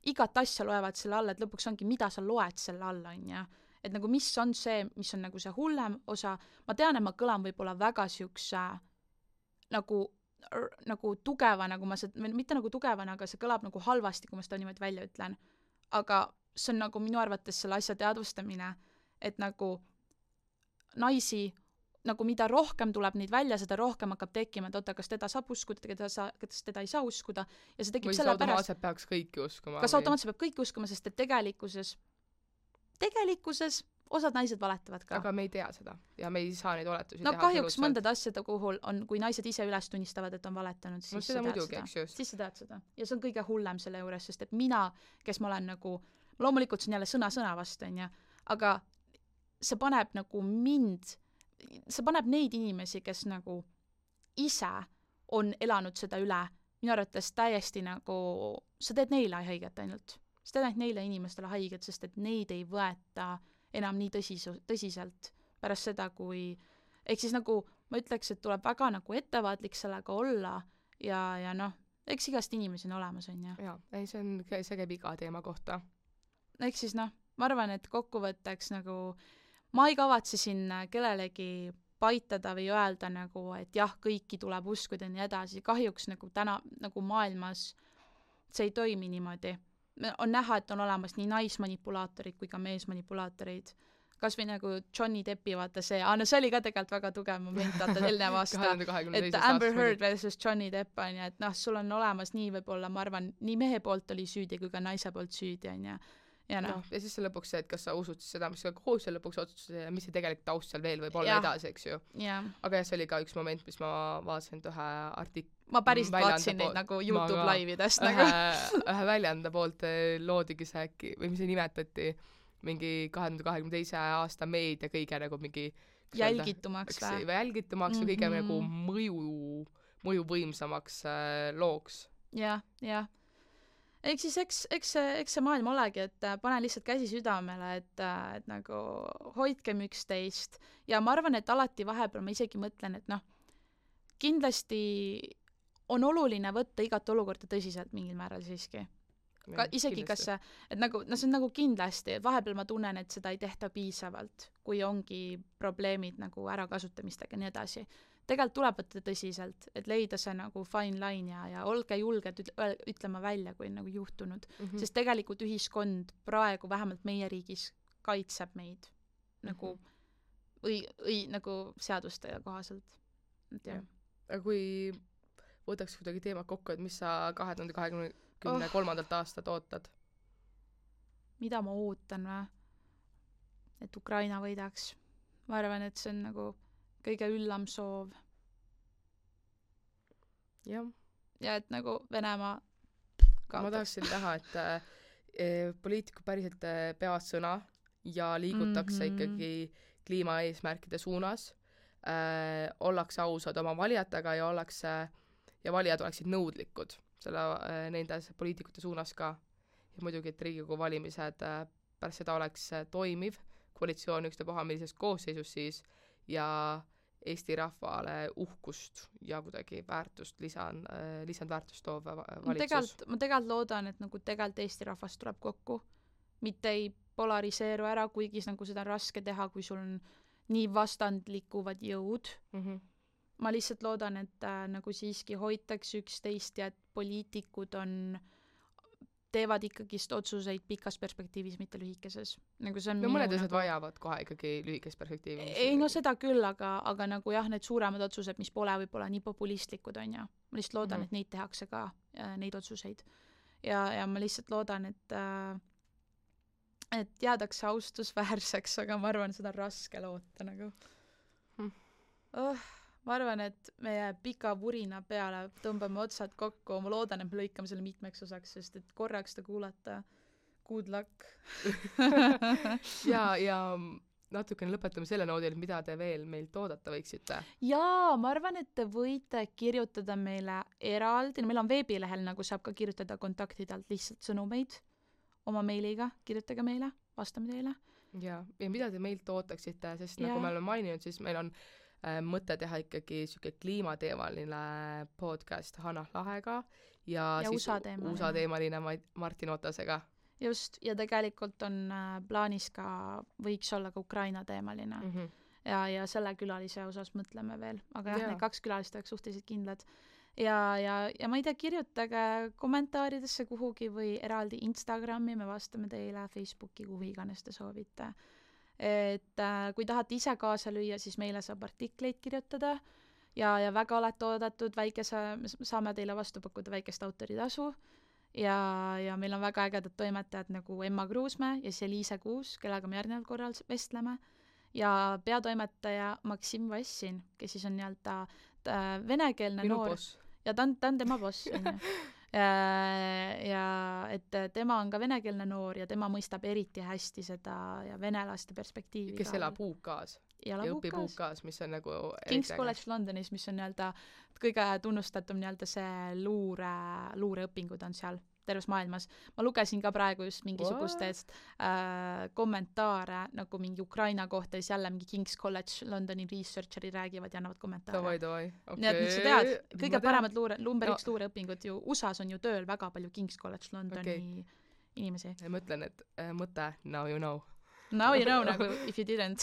igat asja loevad selle alla, et lõpuks ongi, mida sa loed selle alla, on ja et nagu mis on see, mis on nagu see hullem osa, ma tean, et ma kõlan võib-olla väga siukse nagu tugeva, nagu mitte nagu tugevana, aga see kõlab nagu halvasti, kui ma seda niimoodi välja ütlen. Aga see on nagu minu arvates selle asja teadvustamine, et nagu naisi, nagu mida rohkem tuleb neid välja, seda rohkem hakkab tekkima, et kas teda saab uskuda, kas teda ei saa uskuda. Ja see tekib selle pärast. Või automaatselt peaks kõiki uskuma. Kas automaatselt peab kõiki uskuma, sest et tegelikkuses osad naised valetavad ka. Aga me ei tea seda ja me ei saa neid oletusi teha. Kahjuks mõndade asjade kuhul on, kui naised ise üles tunnistavad, et on valetanud, siis sa tead seda. Siis sa tead seda. Ja see on kõige hullem selle juures, sest et mina, kes ma olen nagu, loomulikult see on jälle sõna vastu, aga see paneb nagu see paneb neid inimesi, kes nagu ise on elanud seda üle, minu arvates täiesti nagu, sa teed neile haiget ainult. Sa teed neile inimestele haiget, sest et neid ei võeta enam nii tõsiselt pärast seda, kui ehk siis nagu ma ütleks, et tuleb väga nagu ettevaatlik sellega olla ja eks igast inimesi on olemas, on ju. Jaa, ei, see käib iga teema kohta. Ehk siis ma arvan, et kokkuvõtteks nagu ma ei kavatse siin kellelegi paitada või öelda nagu, et jah, kõiki tuleb uskuda ja nii edasi. Kahjuks nagu täna nagu maailmas see ei toimi niimoodi. On näha, et on olemas nii naismanipulaatorid kui ka meesmanipulaatorid. Kas või nagu Johnny Deppi vaata see, see oli ka tegelikult väga tugev moment, vaata eelnev aasta, et Amber Heard versus Johnny Depp on ja et sul on olemas nii võib-olla, ma arvan, nii mehe poolt oli süüdi kui ka naise poolt süüdi on ja ja siis see lõpuks see, et kas sa usud seda, mis sa koos ja lõpuks otsustas ja mis see tegelikult taust seal veel võib olla edasi, eks ju. Aga see oli ka üks moment, mis ma vaatasin ühe ma päris vaatasin neid nagu YouTube laividest nagu. Ühe väljanda poolt loodigi see äkki, või mis see nimetati, mingi 2022. aasta meedia kõige nagu mingi jälgitumaks või kõige nagu mõju võimsamaks looks. Jah. Ehk siis eks see maailm olegi, et pane lihtsalt käsi südamele, et nagu hoidkem üksteist ja ma arvan, et alati vahepeal ma isegi mõtlen, et kindlasti on oluline võtta igat olukorda tõsiselt mingil määral siiski. Isegi kas see, et nagu, see on nagu kindlasti, et vahepeal ma tunnen, et seda ei tehta piisavalt, kui ongi probleemid nagu ärakasutamistega ja nii edasi. Tegelikult tuleb võtta tõsiselt, et leida see nagu fine line ja olge julged ütlema välja, kui on nagu juhtunud. Sest tegelikult ühiskond praegu, vähemalt meie riigis, kaitseb meid nagu, või nagu seaduste kohaselt. Aga kui võtaks kuidagi teemad kokku, et mis sa 2023. aastat ootad? Mida ma ootan või? Et Ukraina võidaks. Ma arvan, et see on nagu kõige üllam soov. jah. Ja et nagu Venemaa kaotaks. Ma tahaksin näha, et poliitikud päriselt peavad sõna ja liigutakse ikkagi kliimaeesmärkide suunas, ollakse ausad oma valijatega ja valijad oleksid nõudlikud nendes poliitikute suunas ka. Ja muidugi, et Riigikogu valimised pärast seda oleks toimiv koalitsioon ükstapuha millises koosseisus siis ja Eesti rahvale uhkust ja kuidagi lisandväärtust toov valitsus. Ma tegelikult loodan, et nagu tegelikult Eesti rahvas tuleb kokku, mitte ei polariseeru ära, kuigi nagu seda on raske teha, kui sul on nii vastandlikuvad jõud. Ma lihtsalt loodan, et nagu siiski hoitakse üksteist ja et poliitikud teevad ikkagist otsuseid pikas perspektiivis, mitte lühikeses. Nagu see on no mõned asjad vajavad kohe ikkagi lühikest perspektiivi. Ei, no seda küll, aga nagu jah, need suuremad otsused, mis pole võib-olla nii populistlikud, on ja. Ma lihtsalt loodan, et neid tehakse ka, neid otsuseid. Ja ma lihtsalt loodan, et jäädakse austusväärseks, aga ma arvan, seda on raske loota nagu. Ma arvan, et meie pika vurina peale tõmbame otsad kokku, ma loodan, et me lõikame selle mitmeks osaks, sest et korraks ta kuulata good luck. ja natukene lõpetame selle noodil, mida te veel meilt oodata võiksite. Jaa, ma arvan, et te võite kirjutada meile eraldi, meil on veebilehel, nagu saab ka kirjutada kontaktidelt lihtsalt sõnumeid oma meiliga, kirjutage meile, vastame teile. Ja mida te meilt ootaksite, sest nagu me oleme maininud, siis meil on mõte teha ikkagi siuke kliimateemaline podcast Hanah Lahega ja siis USA-teemaline Martin Otasega. Just, ja tegelikult on plaanis ka, võiks olla ka Ukraina-teemaline. Ja selle külalise osas mõtleme veel, aga jah, need 2 külalist oleks suhteliselt kindlad. Ja ma ei tea, kirjutage kommentaaridesse kuhugi või eraldi Instagrami, me vastame teile Facebooki, kuhu iganes te soovite. Et kui tahate ise kaasa lüüa, siis meile saab artikleid kirjutada ja väga olete oodatud, saame teile vastu pakkuda väikest autoritasu ja meil on väga ägedad toimetajad nagu Emma Kruusmäe ja Liise Kuus, kellega me järgneval korral vestleme ja peatoimetaja Maksim Vassin, kes siis on nii-öelda venekeelne minu noor. Boss. Ja ta on tema boss, on ju. Ja et tema on ka venekeelne noor ja tema mõistab eriti hästi seda ja venelaste perspektiivi. Kes elab UK-s ja õpib UK-s, mis on nagu King's College Londonis, mis on nii-öelda kõige tunnustatum nii-öelda see luureõpingud on seal terves maailmas. Ma lugesin ka praegu just mingisugustest kommentaare nagu mingi Ukraina kohta ja siis jälle mingi King's College Londoni researcheri räägivad ja annavad kommentaare. Davai. Nii et nüüd sa tead, kõige paremad number 1 luureõpingud ju USAs on ju tööl väga palju King's College Londoni inimesi. Ma ütlen, et mõte now you know. Now you know nagu if you didn't.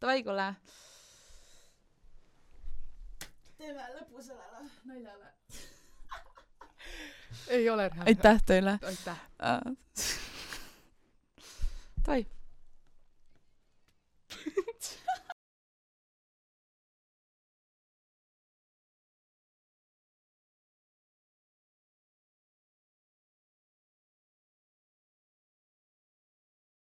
Davai, kuule. Teeme lõpu sellele naljale. Ei ole rää. Aitäh teile. Aitäh. Davai.